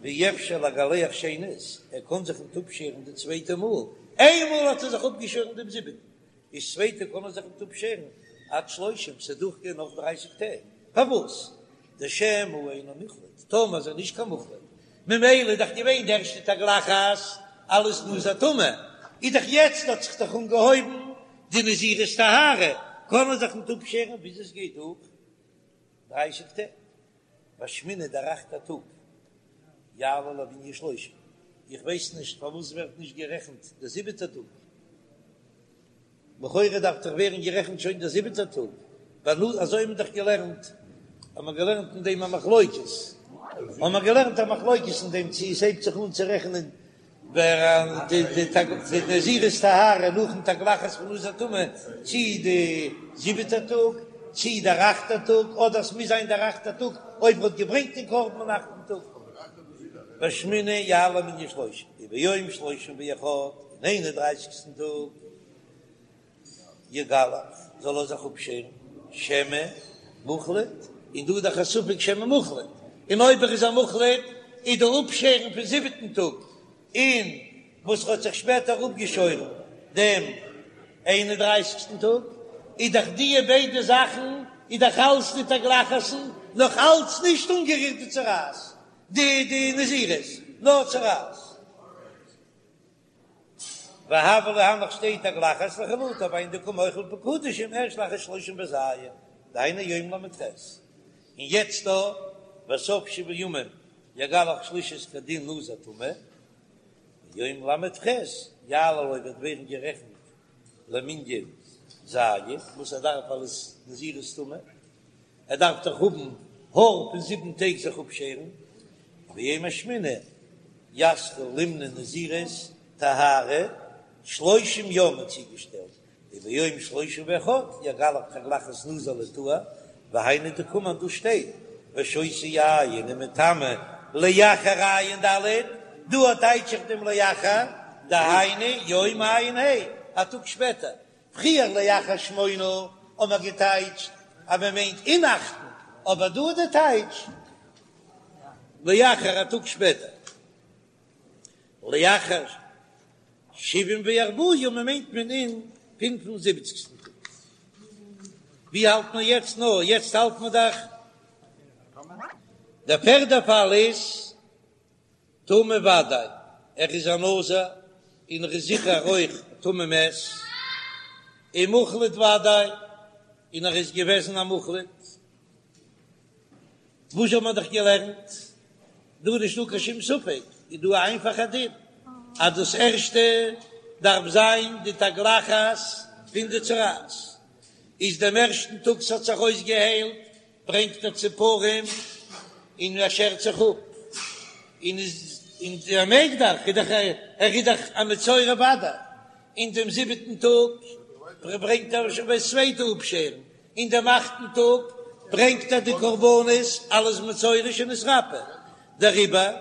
ואי אפשר לגלח שנית, ער קען זיך ניט אפשערן די צווייטע מאל, איינמאל האט ער זיך אפגעשוירן דעם זיבעטן, איז צווייטע קען ער זיך ניט אפשערן עד שלושים, ס'וועט דורכגיין נאך דרייסיג טעג, פארוואס? דשמא אינו מוחלט, טאמער איז ער נישט קיין מוחלט, ממילא איז דאך געווען די ערשטע תגלחת אלס נזיר טמא, איז דאך יעצט האט זיך דאך אנגעהויבן די נזירות טהרה, קען ער זיך ניט אפשערן ביז עס גייט דורך דרייסיג טעג, בשמיני דער אכטער טאג יעלה למנין שלושים, איך ווייס נישט פארוואס ווערט נישט גערעכנט דער זיבעטער טאג. לכאורה דארף דאך ווערן גערעכנט שוין דער זיבעטער טאג, ווייל אזוי האבן מיר דאך געלערנט, האבן מיר געלערנט אין דעם א מחלוקת, האבן מיר געלערנט א מחלוקת אין דעם צי עס הייבט זיך אן צו רעכענען ווער די נזירות טהרה נאכן תגלחת פון נזיר טמא, צי די זיבעטער טאג, צי דער אכטער טאג, אדער עס מוז זיין דער אכטער טאג אויב ער האט געברענגט דעם קרבן אין אכטן טאג. בשמיני יעלה למנין שלושים, וביום שלושים ואחד, אין איין און דרייסיגסטן טאג, יגלח, זאל ער זיך אפשערן, שמא מוחלט, און דא איז דאך א ספק שמא מוחלט, און אויב ער איז א מוחלט, איז די אפשערן פון זיבעטן טאג, און וואס האט זיך שפעטער אפגעשוירן דעם איין און דרייסיגסטן טאג, איז דאך דיע ביידע זאכן איז דאך אלץ די תגלחת'ן נאך אלץ נישט אנגערירט די צרעת, די די נזירות, נאר צרעת. והוה ליה הנך שתי תגלחות לחלוטה והיינו דקא מוחל בקדשים ערשט לאחר שלושים וז' דהיינו יום ל"ח, און יעצט דא בסוף שבעה ימים יגלח שלישית כדין נזיר טמא, ביום ל"ח יעלה לו וועט ווערן גערעכנט למנין ז' וואס ער דארף אלס נזירות טומאה, ער דארף דאך האבן האר פון זיבן טעג זיך אפשערן, וביום השמיני יתחיל למנות נזירות טהרה שלושים יום האט צוגעשטעלט וביום שלושים ואחד יגלח תגלחת נזיר לטהר, והיינו דקאמר דא שטייט ושותה יין ומטמא לאחר ע"ד, דא טייטש איך דעם לאחר, דהיינו יום ע"ה, א טאג שפעטער, פריער לאחר שמונה האט מען געטייטשט אז מען מיינט אין אכטן, אבער דא איז די טייטש לאחר א טאג שפעטער. לאחר שבעים וארבעה ימים מיינט מען אין פינף און זיבעציגסטן טאג. ווי האלט מען יעצט? נא, יעצט האלט מען דאך דער פערדע פאל איז טמא ודאי, ער איז א נזיר און ער איז זיכער אויך טמא מת, און מוחלט ודאי, און ער איז געוועזן א מוחלט. וואס האט מען דאך געלערנט? דא איז נישטא קיין שום ספק, איז דא א איינפאכע דין, אז דאס ערשטע דארף זיין די תגלחת פון די צרעת, איז דעם ערשטן טאג ס'האט זיך אויסגעהיילט, ברענגט ער ציפורים און ער שערט זיך אפ, און איז און ער מעג דאך, איז דאך ער איז דאך א מצורע ודאי, אין דעם זיבעטן טאג ברענגט ער שוין דאס צווייטע אפשערן, אין דעם אכטן טאג ברענגט ער די קרבנות אלס מצורע שנתרפא, דעריבער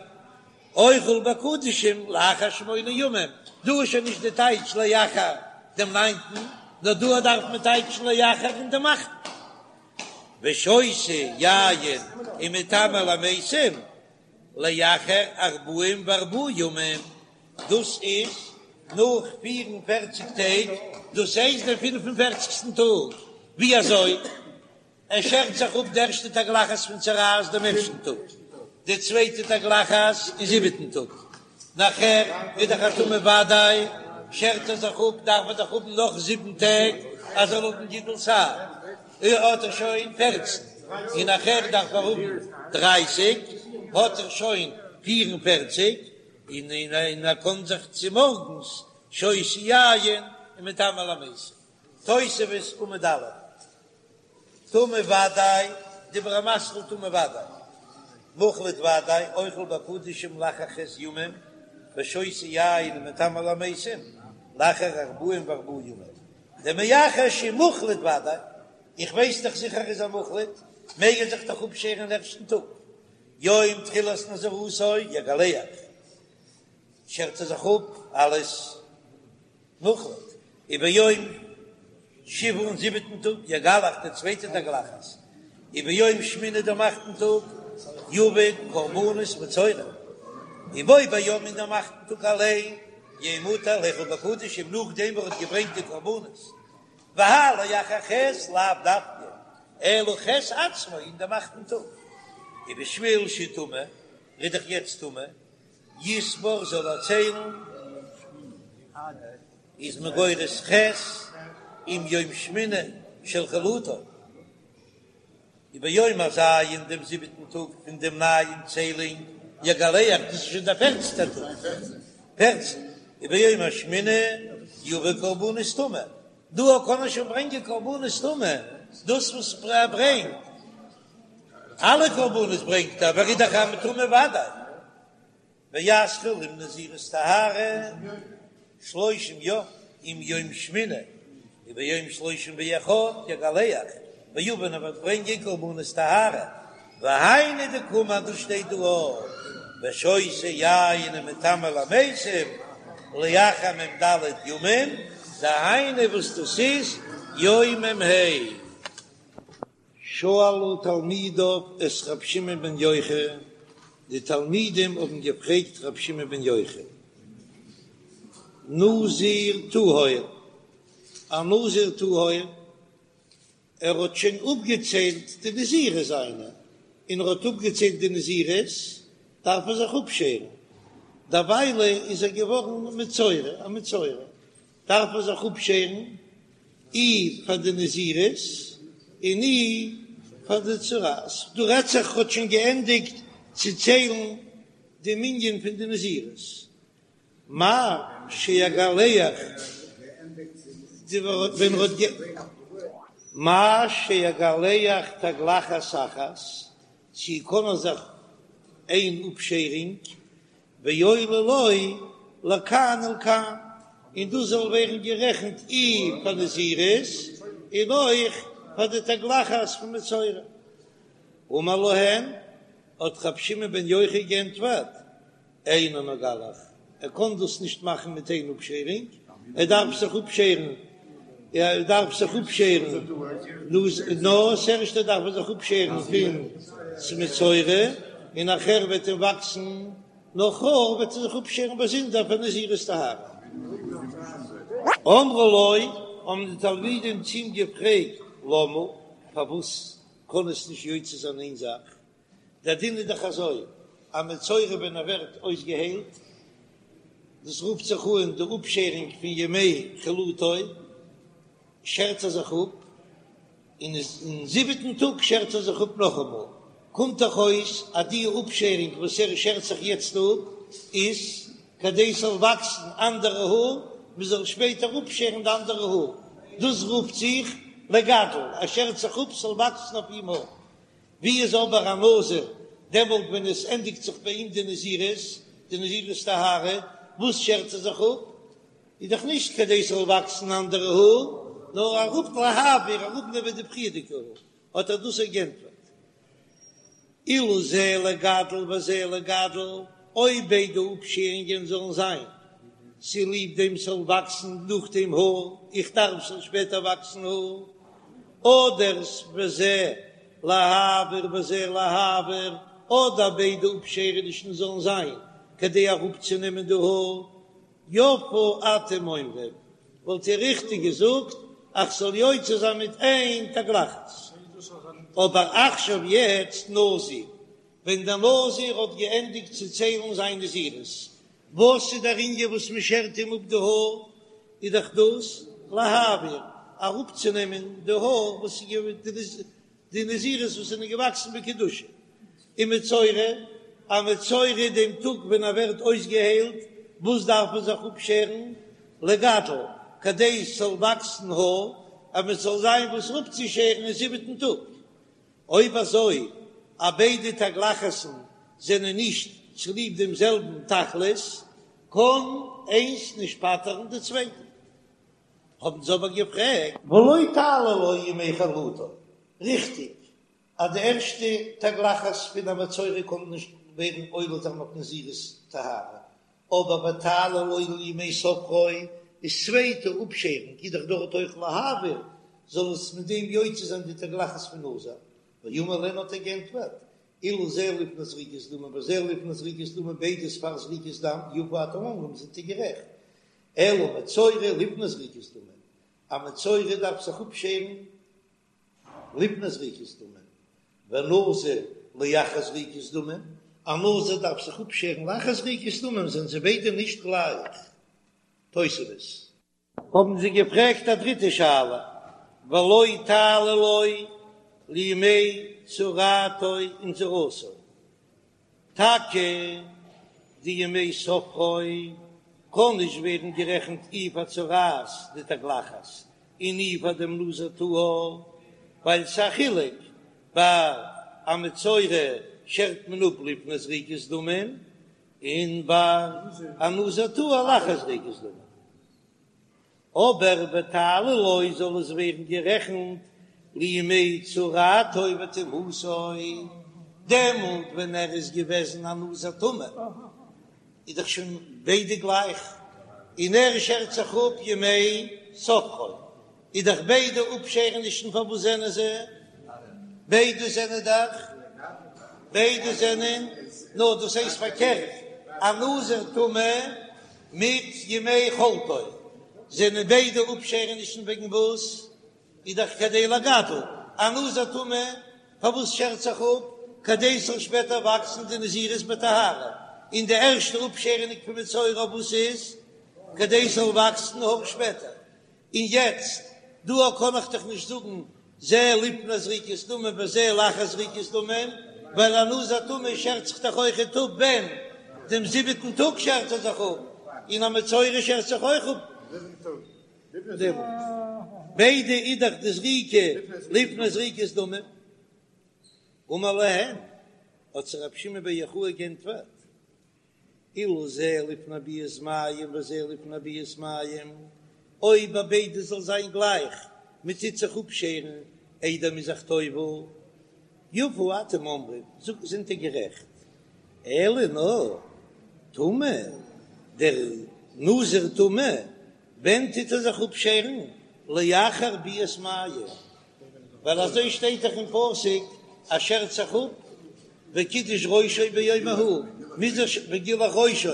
אוכל בקדשים לאחר שמונה ימים, דא איז שוין נישט די טייטש לאחר דעם ניינטן, נאר דא דארף מען טייטשן לאחר אין דעם אכטן, ושותה יין ומטמא למתים לאחר ארבעים וארבעה ימים, דאס איז נאך פיר און פערציג טעג, דאס הייסט דעם פינף און פערציגסטן טאג, ווי אזוי? ער שערט זיך אפ די ערשטע תגלחת פון צרעת דעם ערשטן טאג, די צווייטע תגלחת אין זיבעטן טאג, נאכער איז דאך א טמא ודאי, שערט ער זיך אפ, דארף ער דאך האבן נאך זיבן טעג אז זאל האבן גידול שער, האט ער שוין פערצן, און נאכער דארף ער האבן דרייסיג, האט ער שוין פיר און פערציג, און און ער קען זיך צומארגנס שותה יין און מטמא למתים. תוספות עמוד א', טמא ודאי, דיבור המתחיל טמא ודאי, מוחלט ודאי, אוכל בקדשים לאחר ח' ימים, ושותה יין ומטמא למתים. לאחר ארבעים וארבעה ימים, דמאחר שמוחלט ודאי, איך ווייס דאך זיכער איז ער מוחלט, מעג ער זיך דאך אפשערן אין ערשטן טאג, יום תחילת נזירותו יגלח, שערט ער זיך אפ אלס מוחלט, וביום שביעי אין זיבעטן טאג יגלח די צווייטע תגלחת, וביום שמיני דעם אכטן טאג יביא קרבנות מצורע, ובו ביום אין דעם אכטן טאג אליין יהא מותר לאכול בקדשים נאכדעם וואס ער האט געברענגט די קרבנות, והאי לאחר ח' לאו דווקא אלא ח' עצמו אין דעם אכטן טאג, ובשביל שטמא ער איז דאך יעצט טמא יספור זאל ער ציילן איז מען גורס ח' עם יום שמיני של חלוטו, וביום הז' דעם זיבעטן טאג פון דעם נייעם ציילונג יגלח, דאס איז שוין דער פערצנטער טאג, פערצן, וביום השמיני יביא קרבנות טומאה, דא קען מען שוין ברענגען קרבנות טומאה, דאס וואס ער ברענגט, אלע קרבנות ברענגט ער, אבער איז דאך א טמא ודאי. ויתחיל עם נזירות טהרה שלושים יום עם יום שמיני וביום שלושים ואחד יגלח ויביא און ער וועט ברענגען קרבנות טהרה והיינו דקאמר דאס שטייט דא אויך ושותה יין ומטמא למתים לאחר מ"ד ימים דהיינו וואס דאס איז יום מ"ה. שאלו תלמידיו את ר' שמעון בן יוחאי, די תלמידים האבן געפרעגט ר' שמעון בן יוחאי, נזיר טהור, א נזיר טהור, ער האט שוין אפגעציילט די נזירות זיינע, און ער האט אפגעציילט די נזירות, דארף ער זיך אפשערן, דערוויילע איז ער געווארן מצורע, א מצורע, דארף ער זיך אפשערן אי פאר די נזירות און אי פאר די צרעת, דא רעדט זיך ער האט שוין געענדיגט צו ציילן די מנין פון די נזירות, מהו שיגלח ווען ער האט מהו שיגלח תגלחת אחת, צו קען ער זיך איין אפשערונג ועולה לו לכאן ולכאן, און דאס זאל ווערן גערעכנט אי פאר נזירות און אויך פאר די תגלחת פון מצורע. אמר להן, האט רבי שמעון בן יוחאי געענטפערט, אינו מגלח, ער קען דאס נישט מאכן מיט איין אפשערונג, ער דארף זיך אפשערן, ער דארף זיך אפשערן, נאר ס'ערשטע דארף ער זיך אפשערן פון מצורע, און נאכער וועט אים וואקסן נאך האר, וועט ער זיך אפשערן באזונדער פאר נזירות טהרה. אמרו לו, האבן די תלמידים צו אים געפרעגט, למה, פארוואס קען עס נישט יוצא זיין איין זאך? דער דין איז דאך אזוי, א מצורע ווען ער ווערט אויסגעהיילט, דאס רופט זיך אן די אפשערונג פון ימי חלוטו, שערט ער זיך אפ, און אין זיבעטן טאג שערט ער זיך אפ נאכאמאל, קומט דאך אויס אז די אפשערונג וואס ער שערט זיך יעצט אפ איז כדי ס'זאל וואקסן אנדערע האר, מ'זאל שפעטער אפשערן די אנדערע האר, דאס רופט זיך לגדל, ער שערט זיך אפ ס'זאל וואקסן אויף אים האר. ווי איז אבער א נזיר דעמאלט ווען עס ענדיגט זיך ביי אים די נזירות, די נזירות טהרה, וואס שערט ער זיך אפ? איז דאך נישט כדי ס'זאל וואקסן אנדערע האר, נאר אראפ להעביר, אראפנעמען די פריערדיגע האר, האט ער דאס געענטפערט. אילו זה לגדל וזה לגדל, אויב ביידע אפשערונגען זאלן זיין צוליב דעם ס'זאל וואקסן נאכדעם האר, איך דארף ס'זאל שפעטער וואקסן האר, אדער וזה להעביר וזה להעביר, אדער ביידע אפשערענישן זאלן זיין כדי אראפצונעמען די האר, יפה אתם אומרים, וואלט איר ריכטיג געזאגט אז כ'זאל יוצא זיין מיט איין תגלחת. אבער עכשיו יעצט נזיר, ווען דער נזיר האט געענדיגט צו ציילן זיין נזירות, וואס איז דער ענין וואס מען שערט אים אפ די האר, איז דאך דאס להעביר, אראפצונעמען די האר וואס איז די נזירות וואס זענען געוואקסן בקדושה, און מצורע, א מצורע דעם טאג ווען ער ווערט אויסגעהיילט, וואס דארף מען זיך אפשערן? לגדל, כדי עס זאל וואקסן האר, אז מען זאל זיין וואס אפצושערן אין זיבעטן טאג. אויב אזוי אז ביידע תגלחת'ן זענען נישט צוליב דעם זעלבן תכלית, קען איינס נישט פטר'ן די צווייטע. האבן זיי אבער געפרעגט.
ולא תעלה לו ימי חלוטו, ריכטיג אז די ערשטע תגלחת פון א מצורע קען נישט ווערן עולה זיין אויף נזירות טהרה, אבער ותעלה לו לימי ספרו איז צווייטע אפשערונג איז דאך דארט אויך להעביר, זאל עס מיט דעם יוצא זיין די תגלחת פון נזיר, ואמר להן האט ער גענטפערט, אילו זה לפני זריקת דמים וזה לפני זריקת דמים ביידע איז פאר זריקת דם, יפה אתם אומרים זענט איר גערעכט, אלא מצורע לפני זריקת דמים, א מצורע דארף זיך אפשערן לפני זריקת דמים, ונזיר לאחר זריקת דמים, א נזיר דארף זיך אפשערן לאחר זריקת דמים, זענען זיי ביידע נישט גלייך. תוספות.
האבן זיי געפרעגט א דריטע שאלה, ולא תעלה לו לימי צרעתו ונזירותו, טאקע די ימי ספרו קען נישט ווערן גערעכנט אי פאר צרעת די תגלחת און אי פאר דעם נזיר טהור, ווייל ס'א חילוק ביי א מצורע שערט מען אפ לפני זריקת דמים און ביי א נזיר טהור לאחר זריקת דמים. אבער ותעלה לו זאל עס ווערן גערעכנט לימי צרעתו וטומאתו, דעמאלט ווען ער איז געוועזן א נזיר טמא איז דאך שוין ביידע גלייך, און ער שערט זיך אפ ימי ספרו, איז דאך ביידע אפשערענישן פארוואס זענען זיי ביידע זענען דאך ביידע זענען נאר דאס הייסט פארקערט א נזיר טמא מיט ימי חלוטו זענען ביידע אפשערענישן וועגן וואס? איז דאך כדי לגדל, א נזיר טמא פארוואס שערט זיך אפ? כדי ס'זאל שפעטער וואקסן די נזירות בטהרה, און די ערשטע אפשערעניג פון מצורע וואס איז? כדי ס'זאל וואקסן האר שפעטער, און יעצט דא קען איך דאך נישט זאגן זה לפני זריקת דמים וזה לאחר זריקת דמים, ווייל א נזיר טמא שערט זיך דאך אויכעט אפ ווען? דעם זיבעטן טאג שערט ער זיך אפ, און א מצורע שערט זיך אויך אפ דעמאלט. ביידע איז דאך די זריקה לפני זריקת דמים. אמר להן, האט זיי רבי שמעון בר יוחאי גענטפערט, אילו זה לפני ביאת מים וזה לפני ביאת מים, אויב ביי ביידע זאל זיין גלייך, מען טוט זיך אפשערן איידער מ'איז זיך טובל, יפה אתם אומרים, זאגט זענט איר גערעכט, אלא נאר טמא, דער נזיר טמא, ווען טוט ער זיך אפשערן? לאחר ביאת מים, ווייל אזוי שטייט דאך אין פסוק אז שערט זיך אפ וקידש ראשו ביום ההוא, מוז איך וגילח ראשו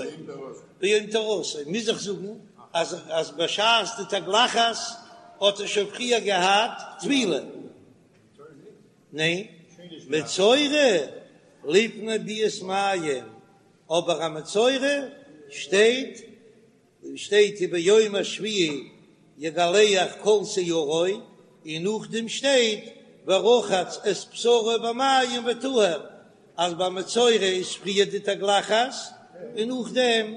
ביום טהרתו, מוז איך זאגן אז אז בשעת די תגלחת האט ער שוין פריער געהאט טבילה. ניין, מצורע לפני ביאת מים, אבער א מצורע שטייט שטייט וביום השביעי יגלח כל שערו, און נאכדעם שטייט ורחץ את בשרו במים וטהר, אז ביי מצורע איז פריער די תגלחת און נאכדעם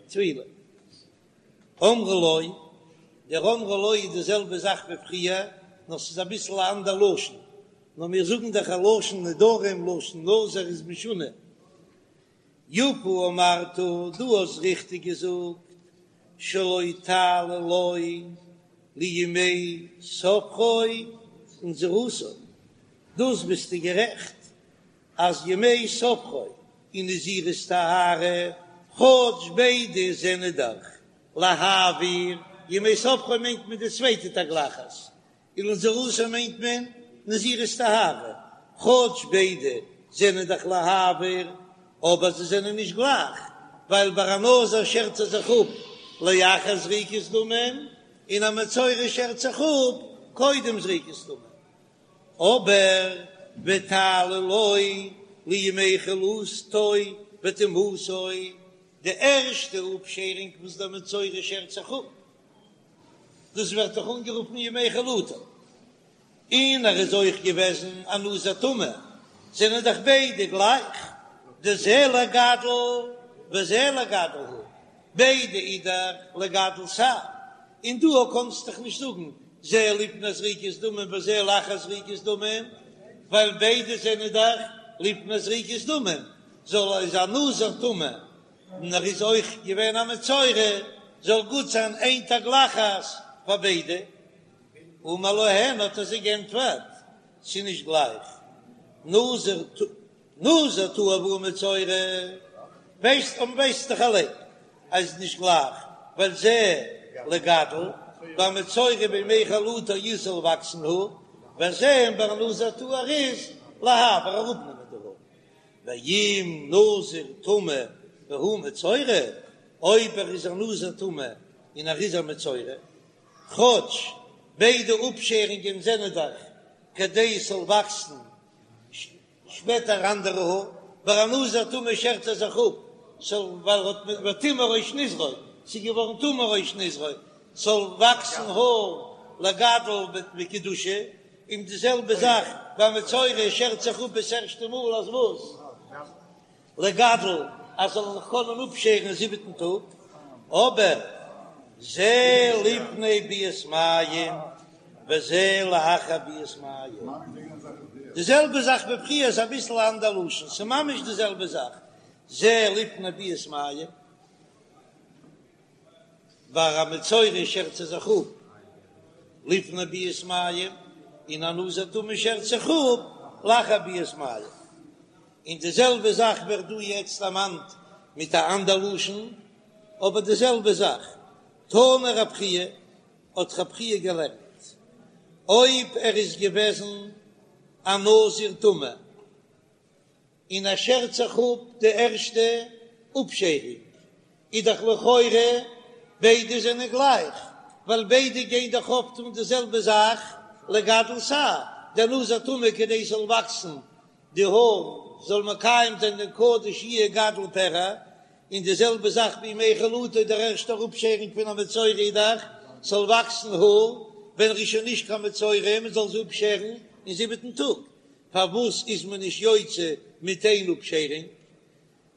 טבילה. אמרו לו, דער אמרו לו איז די זעלבע זאך ווי פריער, נאר ס'איז אביסל א אנדער לשון, נאר מיר זאגן דאך א לשון נדרים לשון נזיר איז משונה, יפה אמרת, דו האסט ריכטיג געזאגט, שלא תעלה לו לימי ספרו ונזירותו, דאס ביסטו גערעכט אז ימי ספרו און נזירות טהרה, כאטש ביידע זענען דאך להעביר, ימי ספרו מיינט מען די צווייטע תגלחת, און לנזירותו מיינט מען נזירות טהרה, כאטש ביידע זענען דאך להעביר, אבער זיי זענען נישט גלייך, ווייל ביי א נזיר שערט ער זיך אפ לאחר זריקת דמים, און א מצורע שערט זיך אפ קודם זריקת דמים. אבער ותעלה לו לימי חלוטו וטומאתו, די ערשטע אפשערונג וואס דער מצורע שערט זיך אפ, דאס ווערט דאך אנגערופן ימי חלוטו, און ער איז אויך געוועזן א נזיר טמא, זענען דאך ביידע גלייך, דזה לגדל וזה לגדל הוא, ביידע איז דאך לגדל שער, און דא קענסט דאך נישט זאגן זה לפני זריקת דמים וזה לאחר זריקת דמים, ווייל ביידע זענען דאך לפני זריקת דמים, זאל איז א נזיר טמא. און ער איז אויך געווען א מצורע, זאל גוט זיין איין תגלחת פאר ביידע. אמר להן האט ער זיי גענטפערט, ס'איז נישט גלייך, נזיר נזיר טהור והוא מצורע, ווייסט און ווייסט דאך אליין אז ס'איז נישט גלייך, ווייל זה לגדל, ביי מצורע בימי חלוטו איז זאל וואקסן האר, וזה און ביי נזיר טהור איז להעביר אראפנעמען די האר. ואם נזיר טמא והוא מצורע, אויב ער איז א נזיר טמא און ער איז א מצורע, כאטש ביידע אפשערונגען זענען דאך כדי עס זאל וואקסן שפעטער אנדערע האר, ביי א נזיר טמא שערט ער זיך אפ ס'זאל ווייל ער האט וטמא ראש נזרו, ס'איז געווארן טמא ראש נזרו, ס'זאל וואקסן האר לגדל בקדושה, און די זעלבע זאך ביי מצורע שערט זיך אפ עס ערשטע מאל אז וואס? לגדל אז זאל זיך קענען אפשערן אין זיבעטן טאג, אבער זה לפני ביאת מים וזה לאחר ביאת מים, די זעלבע זאך ווי פריער איז אביסל א אנדער לשון, ס'איז ממש די זעלבע זאך, זה לפני ביאת מים, ביי א מצורע שערט ער זיך אפ לפני ביאת מים, און א נזיר טמא שערט זיך אפ לאחר ביאת מים. און די זעלבע זאך ווערט דא יעצט דערמאנט מיט א אנדער לשון, אבער די זעלבע זאך. תנא רב חייא, האט רב חייא געלערנט, אויב ער איז געוועזן א נזיר טמא, און ער שערט זיך אפ די ערשטע אפשערונג, איז דאך לכאורה ביידע זענען גלייך, ווייל ביידע גייען דאך אויפטון די זעלבע זאך לגדל שער, דער נזיר טמא כדי ס'זאל וואקסן די האר זאל מקיים זיין דעם קדוש יהיה גדל פרע, און די זעלבע זאך בימי חלוטו דער ערשטער אפשערונג פון א מצורע איז דאך ס'זאל וואקסן האר ווען ער איז שוין נישט קיין מצורע מען זאל זיי אפשערן אין זיבעטן טאג, פארוואס איז מען נישט יוצא מיט איין אפשערונג?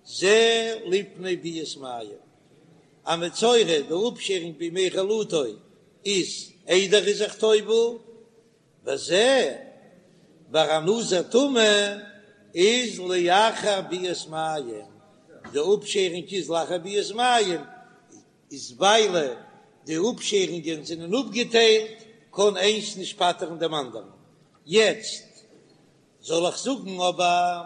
זה לפני ביאת מים, א מצורע די אפשערונג בימי חלוטו איז איידער ער איז זיך טובל, וזה ביי א נזיר טמא איז לאחר ביאת מים, די אפשערונג איז לאחר ביאת מים, איז ווייל די אפשערונגען זענען אפגעטיילט קען איינס נישט פטר'ן דעם אנדערן, יעצט זאל איך זאגן אבער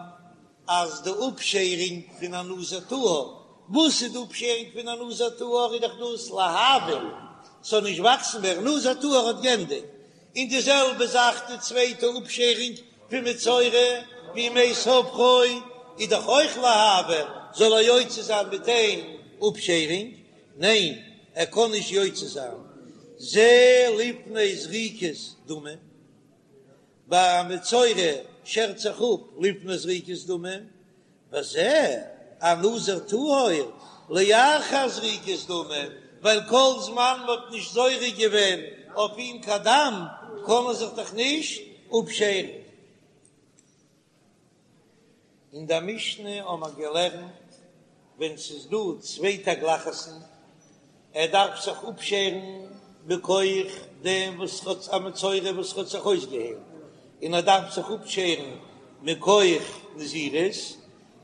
אז די אפשערונג פון א נזיר טהור, וואס איז די אפשערונג פון א נזיר טהור איז דאך דאס להעביר ס'זאל נישט וואקסן מער, נזיר טהור האט גענדיגט, און די זעלבע זאך די צווייטע אפשערונג פון מצורע בימי ספרו איז דאך אויך להעביר, זאל ער יוצא זיין מיט איין אפשערונג? ניין ער קען נישט יוצא זיין, זה לפני זריקת דמים. ביי א מצורע שערט זיך אפ לפני זריקת דמים, וזה א נזיר טהור לאחר זריקת דמים, ווייל כל זמן מען האט נישט זורק געווען אויף אים קיין דם קען ער זיך דאך נישט אפשערן. אין דער משנה האבן מיר געלערנט ווען ס'איז דא צוויי תגלחת'ן, ער דארף זיך אפשערן מכח דעם וואס האט א מצורע וואס האט זיך אויסגעהיילט, און ער דארף זיך אפשערן מכח נזירות,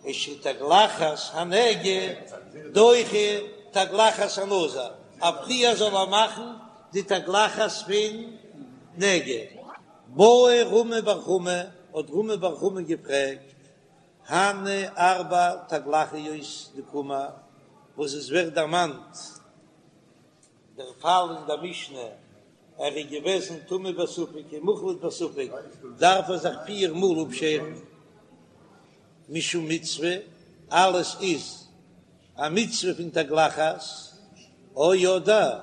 איז שתגלחת הנגע דוחה תגלחת הנזיר, אז פריער זאל ער מאכן די תגלחת פון נגע. בעי רמי בר חמא, האט רמי בר חמא געפרעגט, הני ארבע תגלחיות דקאמר, וואס עס ווערט דערמאנט דער פאל אין דער משנה, ער איז געוועזן טמא בספק און מוחלט בספק, דארף ער זיך פיר מאל אפשערן, משום מצוה, אלעס איז א מצוה פון תגלחת, או אדער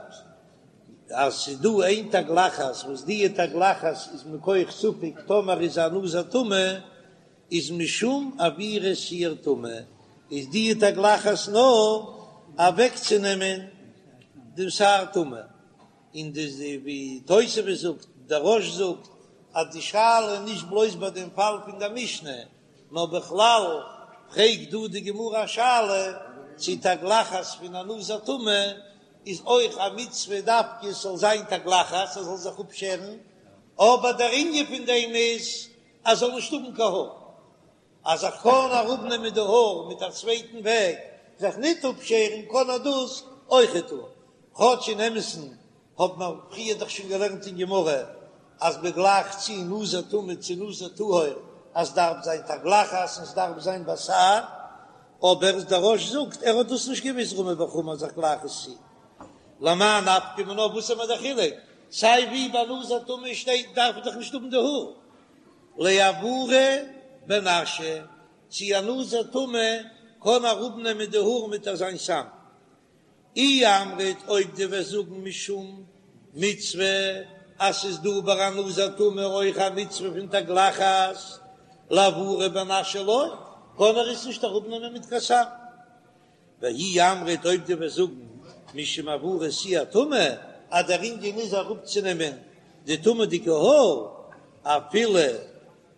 אז ס'איז דא איין תגלחת וואס דיע תגלחת איז מכח ספק טאמער איז א נזיר טמא איז משום עבירת שער טומאה איז דיע תגלחת נאר אוועקצונעמען דעם שער טומאה, און די ווי תוספות זאגט, דער רא"ש זאגט אז די שאלה איז נישט בלויז ביי דעם פאל פון דער משנה, נאר בכלל פרעגט דא די גמרא א שאלה צו תגלחת פון א נזיר טמא איז אויך א מצוה דווקא עס זאל זיין תגלחת ער זאל זיך אפשערן, אבער דער ענין פון דעם איז אז ער זאל נישט האבן קיין האר, אז ער קען אראפנעמען די האר מיט א צווייטן וועג.
זיך ניט אפשערן קען ער דאס אויכעט טון, כאטש אין אמת'ן האט מען פריער דאך שוין געלערנט אין גמרא אז מען גלייכט צו נזיר טמא צו נזיר טהור אז ס'דארף זיין תגלחת און ס'דארף זיין בתער, אבער דער רא"ש זאגט ער האט דאס נישט געוויסט רמי בר חמא אז איך גלייך עס צו. למאי נפקא מינה וואס איז מיר דער חילוק סיי ווי ביי נזיר טמא שטייט דארף איך דאך נישט האבן די האר לעבורי בנשא צו א נזיר טמא קען אראפנעמען די האר מיט אזיין סם אי אמרת אויב דו וועסט זאגן משום מצוה אז ס'איז דא ביי א נזיר טמא אויך א מצוה פון תגלחת לעבורי בנשא לא קען ער עס נישט אראפנעמען מיט קיין סם. ואי אמרת אויב דו וועסט זאגן משום העברת שער טומאה אז דער ענין איז אראפצונעמען די טומא'דיגע האר אפילו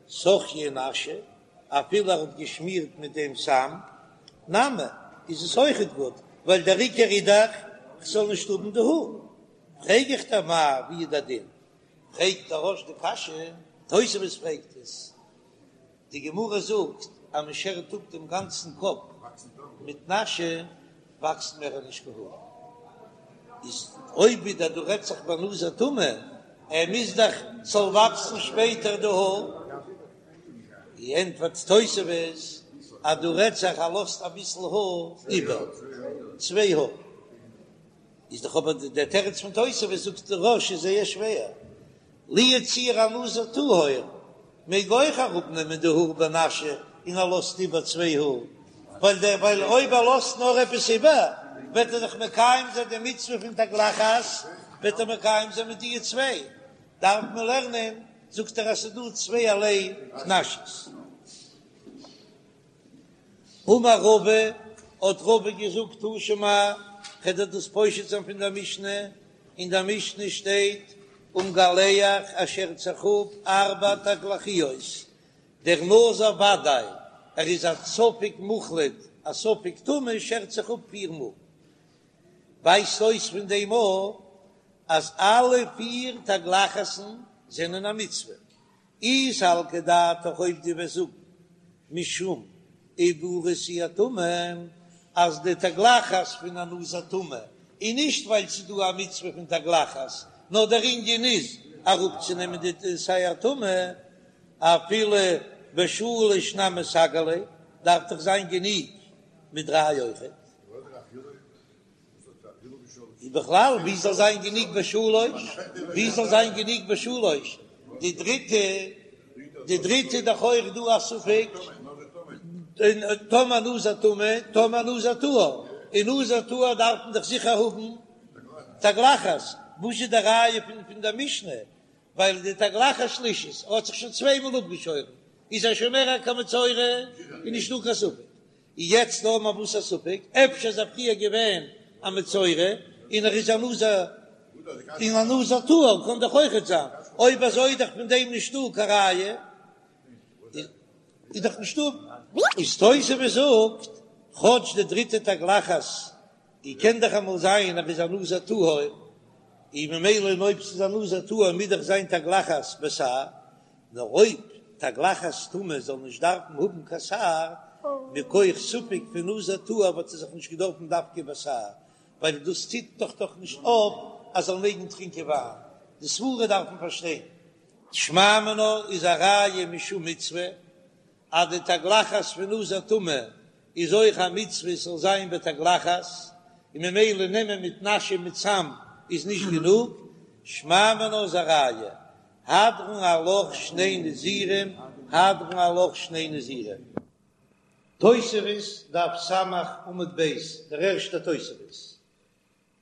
סכיה נשא אפילו ער האט געשמירט מיט דעם סם נמי איז עס אויכעט גוט ווייל דער עיקר איז דאך כ'זאל נישט האבן די האר. פרעג איך דיר מאי ווי איז דער דין? פרעגט דער רא"ש די קשיא, תוספות פרעגט עס, די גמרא זאגט אז מען שערט אפ דעם גאנצן קאפ מיט נשא וואקסט מער נישט קיין האר, איז אויב ווידער דא רעדט זיך ביי נזיר טמא, ער מוז דאך ס'זאל וואקסן שפעטער די האר, ענטפערט תוספות אז דא רעדט זיך ער לאזט אביסל האר איבער, צוויי האר. איז דאך אבער דער תירוץ פון תוספות זאגט דער רא"ש איז זייער שווער, לו יצוייר א נזיר טהור מעג אויך אראפ נעמען די האר בנשא און ער לאזט איבער צוויי האר, ווייל דער ווייל אויב ער לאזט נאר עפעס איבער וועט ער דאך מקיים זיין די מצוה פון תגלחת וועט ער מקיים זיין מיט די צוויי, דארף מען לערנען זאגט ער אז ס'איז דא צווייערליי נשא'ס. אמר רבא, האט רבא געזאגט תא שמע, כ'וועל דיר דאס פושט זיין פון דער משנה, אין דער משנה שטייט ומגלח ער שערט זיך אפ ארבע תגלחיות, דער נזיר ודאי, ער איז א ספק מוחלט, א ספק טמא שערט זיך אפ פיר מאל, ווייזט אויס פון דעם א אז אלע פיר תגלחת'ן זענען א מצוה, אי סלקא דעתך אויב דו וועסט זאגן משום עבורי שער טומאה אז די תגלחת פון א נזיר טמא איז נישט ווייל ס'איז דא א מצוה פון תגלחת נאר דער ענין איז אראפצונעמען די שער טומאה אפילו בשלש נמי סגי ליה דארף דאך זיין גענוג מיט דריי אויכעט. און בכלל ווי זאל זיין גענוג בשלוש, ווי זאל זיין גענוג בשלוש, די דריטע, די דריטע איז דאך אויך דא א ספק, טאמער נזיר טמא, טאמער נזיר טהור, און נזיר טהור דארף מען דאך זיכער האבן תגלחת, וואס איז די ראיה פון פון דער משנה, ווייל די תגלחת שלישית, ער האט זיך שוין צוויי מאל אפגעשוירן, איז ער שוין מער קיין מצורע, איז נישטא קיין ספק. יעצט האבן מיר וואס א ספק, אפשר איז ער פריער געווען א מצורע און ער איז א נזיר, און א נזיר טהור קען דאך אויכעט זיין, אויב אזוי איז דאך פון דעם נישטא קיין ראיה, איז דאך נישטא. איז תוספות זאגט, כאטש די דריטע תגלחת און קען דאך אמאל זיין אז ער איז א נזיר טהור, און ממילא און אויב ס'איז א נזיר טהור מוז דאך זיין תגלחת בתער, נאר אויב תגלחת טומאה זאל נישט דארפן האבן קיין שער, מכח ספק פון נזיר טהור וואלט ער זיך נישט געדארפן דווקא בתער, ווייל דאס טוט דאך דאך נישט אויף אז זאל מעגן טרינקען וויין, די סברה דארף מען פארשטיין. שמע מינה איז א ראיה משום מצוה אז די תגלחת פון נזיר טמא איז אויך א מצוה עס זאל זיין בתגלחת, און ממילא נעמען מיט נשא מיט סם איז נישט גענוג, שמע מינה איז א ראיה, הדרן עלך שני נזירים, הדרן עלך שני נזירים. תוספות, דף ס' עמוד ב', דער ערשטער תוספות,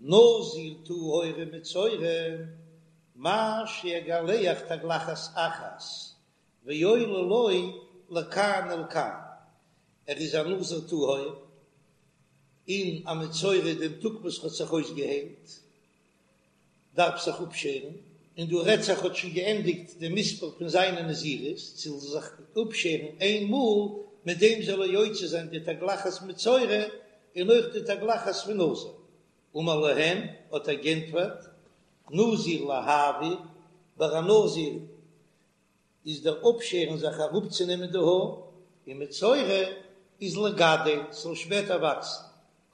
נזיר טהור ומצורע, מהו שיגלח תגלחת אחת ועולה לו לכאן ולכאן, ער איז א נזיר טהור און א מצורע דעם טאג וואס האט זיך אויסגעהיילט דארף זיך אפשערן, און דא רעדט זיך האט שוין געענדיגט די מספר פון זיינע נזירות, זאל זיך אפשערן איין מאל, מיט דעם זאל ער יוצא זיין די תגלחת מצורע און אויך די תגלחת פון נזיר. אמר להם, האט ער גענטפערט, נזיר להעביר, ביי א נזיר איז דער אפשערן זיך אראפצונעמען די האר, און מצורע איז לגדל, ס'זאל שפעטער וואקסן.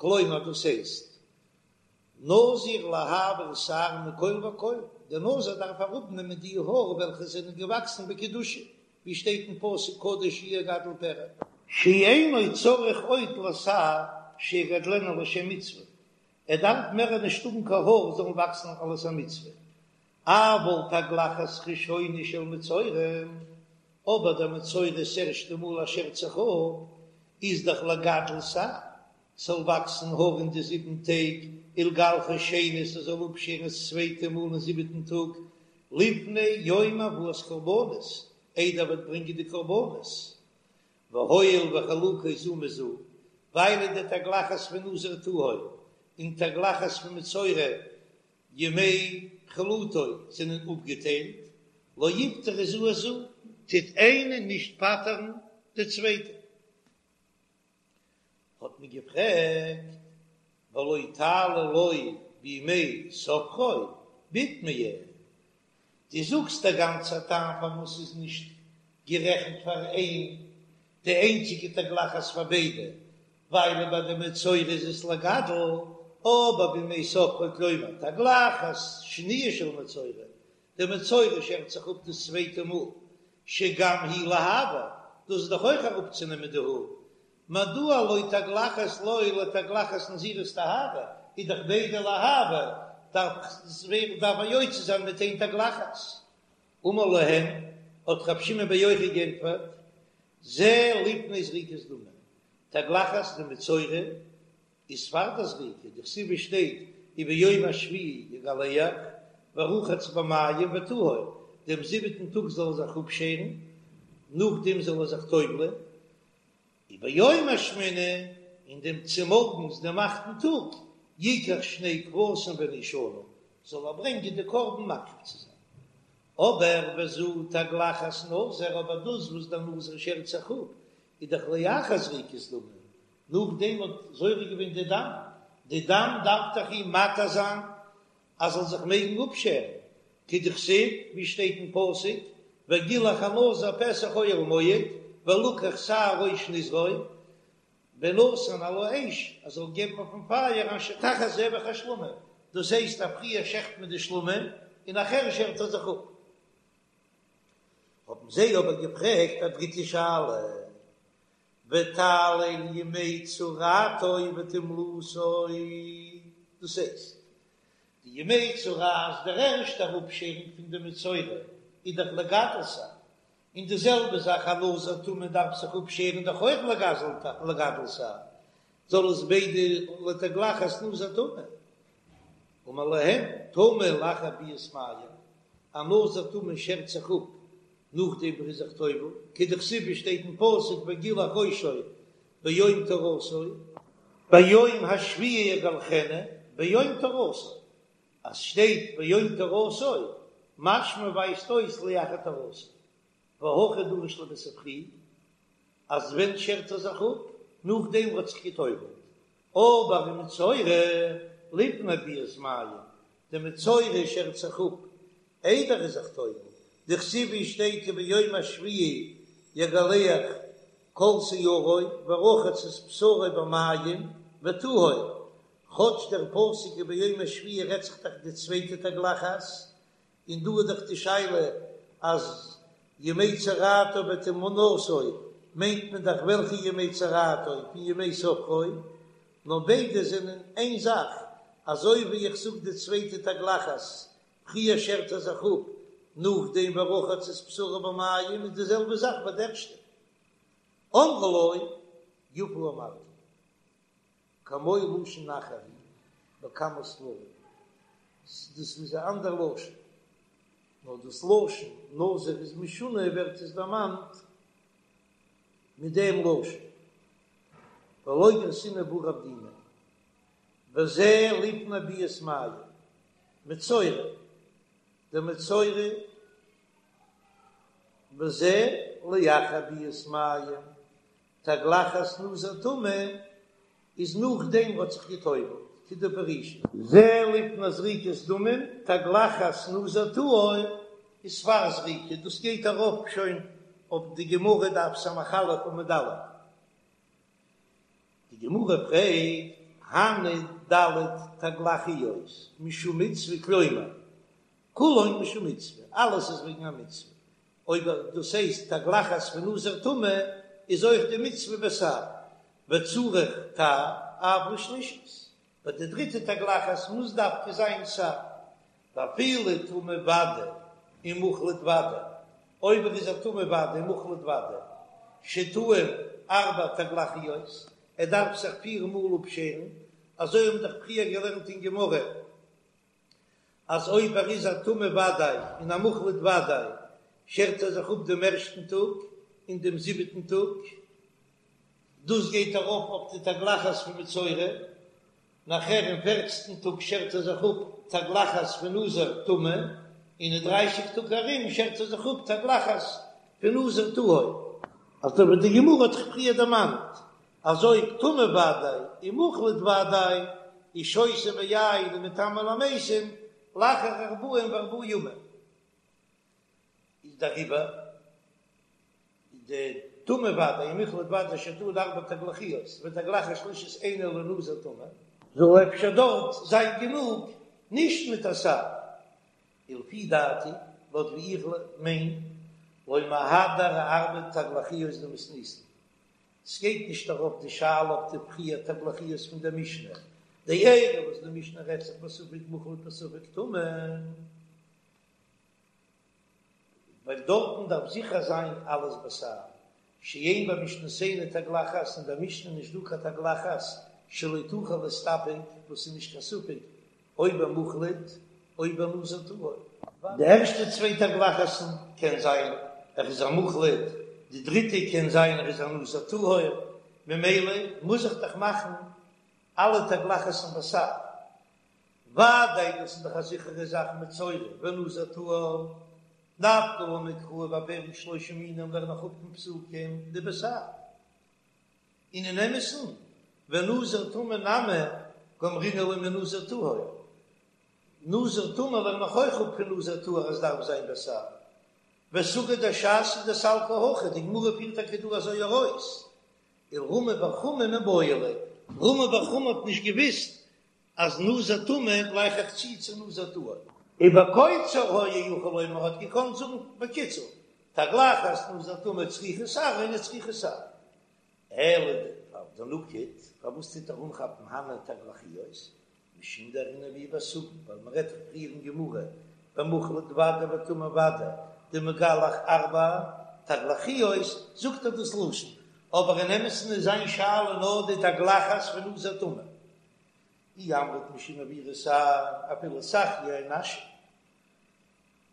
כלומר דאס הייסט, נזיר להעביר שער מכל וכל, דער נזיר דארף אראפנעמען די האר וועלכע זענען געוואקסן בקדושה, ווי שטייט אין פסוק קדוש יהיה גדל פרע. שאינו צריך עוד לשער שיגדלנו לשם מצוה, ער דארף מער נישט האבן קיין האר זאלן וואקסן אלס א מצוה, אבל תגלחת ראשונה של מצורע, אבער דער מצורע ס'ערשטע מאל ער שערט זיך אפ, איז דאך לגדל שער, ס'זאל וואקסן האר אין די זיבן טעג, ולגלחו שנית ער זאל אפשערן עס צווייטע מאל אין זיבעטן טאג, לפני יום הבאת קרבנות, איידער ער וועט ברענגען די קרבנות. והואיל וחלוקות זו מזו, ווייל די תגלחת פון נזיר טהור און תגלחת פון מצורע ימי חלוטו זענען אפגעטיילט, לא יפטרו זו את זו, טוט איינע נישט פטר'ן די צווייטע. האט מען געפרעגט, ולא תעלה לו בימי ספרו בתמיה, דו זאגסט דער גאנצער טעם פארוואס ס'איז נישט גערעכנט פאר איין די איינציגע תגלחת פאר ביידע, ווייל ביי די מצורע איז עס לגדל, אבער בימי ספרו כלומר תגלחת שניה של מצורע, די מצורע שערט זיך אפ דאס צווייטע מאל, שגם היא להעביר, דאס איז דאך אויך אראפצונעמען די האר, מדוע לא תגלחת לו לתגלחת נזירות טהרה, איז דאך ביידע להעביר, דארף ער יוצא זיין מיט איין תגלחת. אמר להם, האט רבי שמעון בר יוחאי גענטפערט, זה לפני זריקת דמים, תגלחת דמצורע איז פאר די זריקה, דכתיב שטייט וביום השביעי יגלח ורחץ במים וטהר, דעם זיבעטן טאג זאל ער זיך אפשערן, נאכדעם זאל ער זיך טובל'ען, וביום השמיני, און דעם צומארגנס דעם אכטן טאג, יקח שני כבשים בני שנה, זאל ער ברענגען די קרבן מקריב צו זיין. אבער וזו תגלחת נזיר, אבער דאס וואס דער נזיר שערט זיך אפ, איז דאך לאחר זריקת דמים, נאכדעם האט זורק געווען די דם, די דם דארף דאך אים מתיר זיין אז זאל זיך מעגן אפשערן, כדכתיב, ווי שטייט אין פסוק, וגילח הנזיר פתח אוהל מועד, ולקח שער ראש נזרו, ונתן על האש, ער זאל געבן אויפן פייער אשר תחת זבח השלמים, דאס הייסט אז פריער שעכט מען די שלמים און נאכער שערט ער זיך אפ. האבן זיי אבער געפרעגט א דריטע שאלה, ותעלה לימי צרעתו וטומלתו, דאס הייסט, די ימי צרעת, דער ערשטער אפשערונג פון די מצורע איז דאך לגדל שער, און די זעלבע זאך א נזיר טמא דארף זיך אפשערן דאך אויך לגדל שער, זאל עס ביידע לתגלחת נזיר טמא. אמר להם, טמא לאחר ביאת מים, א נזיר טמא שערט זיך אפ נאכדעם ווי ער איז זיך טובל, כדכתיב ווי שטייט אין פסוק וגילח ראשו ביום טהרתו, ביום השביעי יגלחנו ביום טהרתו, אז שטייט ביום טהרתו משמע ווייזט אויס לאחר טהרתו, והכי דריש ליה בספרי אז ווען שערט ער זיך אפ? נאכדעם וואס האט זיך געטובלט, אבער ומצורע לפני ביאת מים, די מצורע שערט זיך אפ איידער ער איז זיך טובל, דכתיב ווי שטייט וביום השביעי יגלח כל שערו ורחץ את בשרו במים וטהר, כאטש דער פסוק וביום השביעי רעדט זיך דאך די צווייטע תגלחת, און דא איז דאך די שאלה אז ימי צרעתו וטומאתו מיינט מען דאך וועלכע ימי צרעתו פון ימי ספרו, נאר ביידע זענען איין זאך, אזוי ווי איך זאג די צווייטע תגלחת פריער שערט ער זיך אפ נאכדעם ורחץ את בשרו במים איז די זעלבע זאך ביי די ערשטע. אמרו לו יפה אמרת כמו לשון אחר הוא בכמה ספרים, דאס איז א אנדער לשון, נאר דאס לשון נזיר איז משונה ווערט עס דערמאנט מיט דעם לשון ולא גרסינן בה רב דימי, וזה לפני ביאת מים, מצורע, דער מצורע וזה לאחר ביאת מים, תגלחת נזיר טמא איז נאכדעם וואס האט זיך גע'טובל'ט, כדפרישית. זה לפני זריקת דמים, תגלחת נזיר טהור איז פאר זריקה, דאס גייט ארויף שוין אויף די גמרא דף ס"א עמוד א'. די גמרא פרעגט,
הני ד' תגלחיות משום מצוה כלומר, כולן משום מצוה, אלעס איז וועגן א מצוה, אויב דאס הייסט תגלחת פון נזיר טמא איז אויך די מצוה בתער, וצריך תער אף לשלישית, ביי די דריטע תגלחת מוז דווקא זיין תער, ואפילו טמא ודאי און מוחלט ודאי, אויב ער איז א טמא ודאי און מוחלט ודאי, שטעון ארבע תגלחיות, ער דארף זיך פיר מאל אפשערן, אזוי האבן דאך פריער געלערנט אין גמרא, אז אויב ער איז א טמא ודאי און א מוחלט ודאי, שערט ער זיך אפ דעם ערשטן טאג און דעם זיבעטן טאג, דאס גייט ארויף אויף די תגלחת פון מצורע, נאכער אין פערצנטן טאג שערט ער זיך אפ תגלחת פון נזיר טמא, און אין דרייסיג טאג ארום שערט ער זיך אפ תגלחת פון נזיר טהור. אזוי ווי די גמרא האט דאך פריער דערמאנט אז אויב טמא ודאי און מוחלט ודאי איז שותה ביין ומטמא למתים לאחר ארבעים וארבעה ימים איז דעריבער די טמא ודאי און מוחלט ודאי שטעון ארבע תגלחיות ותגלחת שלישית אינה אלא לנזיר טמא. זאל אפשר דארט זיין גענוג נישט מיט א תער, ולפי דעתי, לויט ווי איך מיין, לא מהדר אארבע תגלחיות דמתניתין. ס'גייט נישט ארויף די שאלה אויף די פיר תגלחיות פון דער משנה, דאלו וואס די משנה רעדט זיך בספק מוחלט בספק טמא, ווייל דארטן דארף זיכער זיין אלעס בתער, שאין במשנתנו תגלחת, אין דער משנה נישט דא קיין תגלחת שלא תוכל להסתפק, וואס איז נישט קיין ספק או במוחלט או בנזיר טהור. די ערשטע צוויי תגלחת'ן קען זיין ער איז א מוחלט, די דריטע קען זיין ער איז א נזיר טהור, ממילא מוז איך דאך מאכן אלע תגלחת'ן בתער. ודאי דאס איז דאך א זיכערע זאך מצורע ונזיר טהור, נפקא לן מקרא בפרק שלושה מינים לערן איך אפ פון פסוקים דבתער. און אין אמת'ן ונזיר טמא נמי גמרינן ליה מנזיר טהור, נזיר טמא לערן איך אויך אפ פון נזיר טהור אז דארף זיין בתער, וסוגיא דש"ס איז דסלקא הכי, די גמרא פירט טאקע דא אזוי ארויס, ולרמי בר חמא מיבעי ליה, רמי בר חמא האט נישט געוויסט אז נזיר טמא גלייך איך צו צו נזיר טהור. ובקוצר היה יכול לומר האט געקאנט זאגן בקיצור, תגלחת נזיר טמא צריכה תער אינה צריכה תער. אלא דנקיט, פארוואס טוט ער אנכאפן הני תגלחיות? משום דארעינן בהו בסוגיא, ווייל מען רעדט דאך פריער אין גמרא במוחלט ודאי וטמא ודאי דמגלח ארבע תגלחיות, זאגט ער דאס לשון, אבער אין אמת'ן איז זיין שאלה נאר די תגלחת פון נזיר טמא. אי אמרת משום עבירת שער, אפילו סכיה נשא.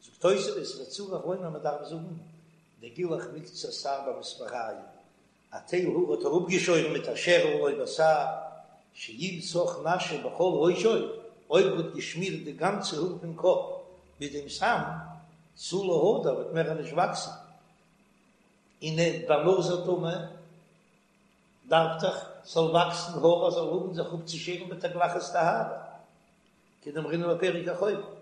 זאגט תוספות וצריך לומר מען דארף זאגן דגילח מקצת שער במספריים, א טייל האר האט ער אפגעשוירן מיט א שערל לא בתער, שאם סך נשא בכל ראשו, אויב ער האט געשמירט די גאנצע האר פון קאפ מיט דעם סם, תו לא הדר וועט מער נישט וואקסן, און ביי נזיר טמא דארף דאך ס'זאל וואקסן האר אז זאל האבן זיך אפצושערן בתגלחת טהרה, כדאמרינן בפרק החובה,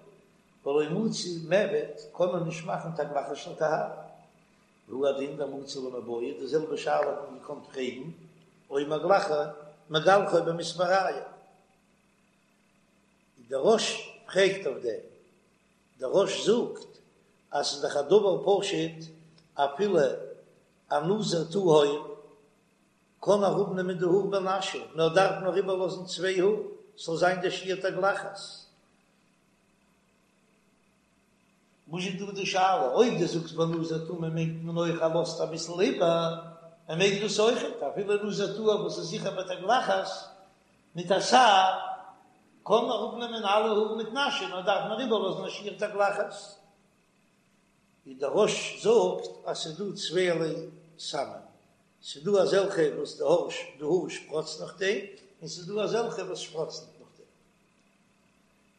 ולא מצי מיעבד קען מען נישט מאכן תגלחת של טהרה, והוא הדין דמצי למיבעיא, די זעלבע שאלה האט מען געקאנט פרעגן או מגלחו מגלחו במספריים, דער רא"ש פרעגט אויף דעם, דער רא"ש זאגט אז ס'איז דאך א דבר פשוט אפילו א נזיר טהור קען אראפנעמען די האר בנשא, נאר דארף נאר איבערלאזן צוויי האר ס'זאל זיין די שיעור תגלחת. וואס איז דא די שאלה? אויב דו זאגסט ביי נזיר טמא מיינט מען אויך ער לאזט אביסל איבער, ער מעג דאס אויכעט, אפילו נזיר טהור וואס איז זיכער בתגלחת מיט א תער, קען אראפנעמען אלע האר מיט נשא, נאר דארף נאר איבערלאזן א שיעור תגלחת. ווי דער רא"ש זאגט אז ס'איז דא צווייערליי סמים, ס'איז דא אזעלכע וואס די האר די האר שפראצט נאכדעם, און ס'איז דא אזעלכע וואס שפראצט נישט נאכדעם.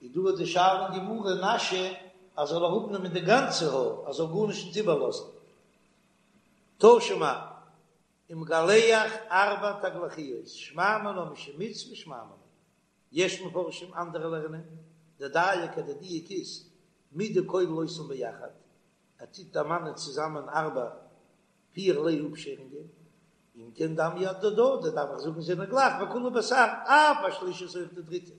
איז דא די שאלה אין גמרא נשא אז זאל אראפנעמען די גאנצע האר אז זאל גארנישט נישט איבערלאזן. תא שמע, ומגלח ארבע תגלחיות, שמע מינה משום מצוה שמע מינה. יש מפרשים אנדערע לערנען, דדייק אז די דיוק איז מדכולל אותן ביחד, ער טוט דערמאנען צוזאמען ארבע פירערליי אפשערונגען. אם כן דמיא אהדדי, דארף איך זאגן זענען גלייך וכולהו בתער, אף השלישית אויך די דריטע,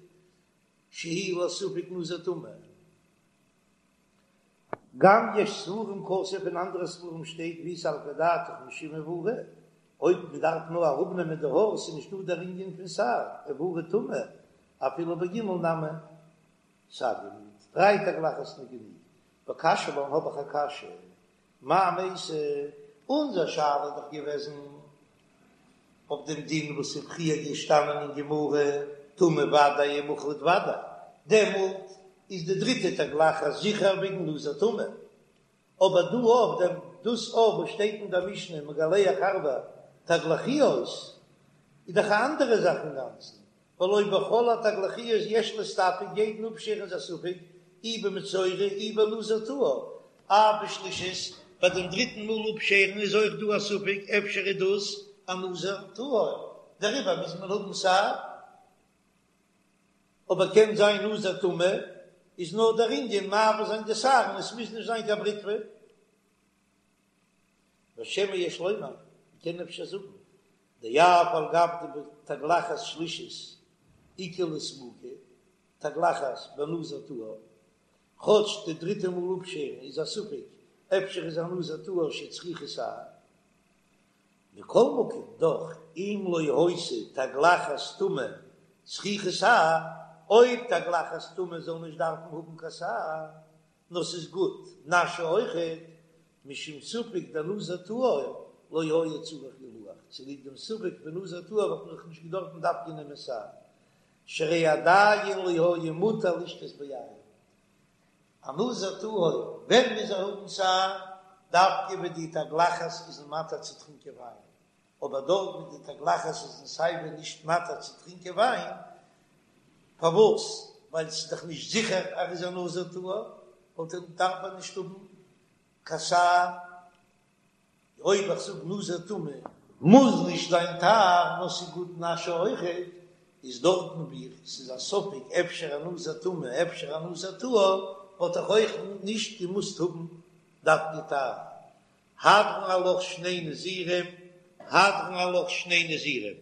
שהיא לספק נזיר טמא. גם יש ספרים כתוב אין אנדערע ספרים שטייט ואי סלקא דעתך משום עבורי, אויב מען דארף נאר אראפנעמען די האר ס'איז נישטא דער ענין פון תער, עבורי טומאה, אפילו בג' נמי סגי מיט דריי תגלחת איז גענוג, וקשיא לן האב איך א קשיא, מאי מייתי, אונזער שאלה איז דאך געוועזן אויף דעם דין וואס איז פריער געשטאנען אין גמרא, טמא ודאי ומוחלט ודאי, דעמאלט איז די דריטע תגלחת זיכער וועגן נזיר טמא, אבער דא אויף דעם דאס אויף וואס שטייט אין דער משנה מגלח ארבע תגלחיות איז דאך א אנדערע זאך אינגאנצן, והלא בכל התגלחיות יש להסתפק, יעדן אפשערן איז א ספק, אי במצורע אי בנזיר טהור, אף בשלישית, ביי דעם דריטן מאל אפשערן איז אויך דא א ספק אפשר איז דאס א נזיר טהור, דעריבער מוז מען האבן תער, אבער קען זיין נזיר טמא איז נאר דער ענין מעביר זיין די שער און עס מוז נישט זיין קיין בריטווע. ושמא יש לומר, מען קען אפשר זאגן, דאף על גב דבתגלחת שלישית איכא לספוקי, תגלחת בנזיר טהור, כאטש די דריטע מאל אפשערן איז א ספק, אפשר איז א נזיר טהור שצריכה תער. מכל מקום, דאך, אם לא היתה תגלחת טומאה צריכה תער, אויב תגלחת טומאה זאל נישט דארפן האבן קיין תער, נאר ס'איז גוט נשא אויכעט, משום ספק דנזיר טהור לא היה צריך גילוח, צוליב דעם ספק פון נזיר טהור וואלט מען דאך נישט געדארפן דווקא נעמען תער, שהרי עדיין לא היה מותר לשתות ביין. א נזיר טהור ווען מוז ער האבן תער? דווקא ווען די תגלחת איז אים מתיר צו טרינקען וויין, אבער דארט ווי די תגלחת איז אים סייווי נישט מתיר צו טרינקען וויין, פארוואס? ווייל ס'איז דאך נישט זיכער אז ער איז א נזיר טהור, וואלט ער דארף ער נישט האבן קיין תער, אויב איך זאג נזיר טמא מוז נישט זיין תער, נאר ס'איז גוט נשא אויכעט, איז דארטן ווי ס'איז א ספק אפשר א נזיר טמא אפשר א נזיר טהור, וואלט איך אויך נישט געמוזט האבן דווקא תער. הדרן עלך שני נזירים, הדרן עלך שני נזירים.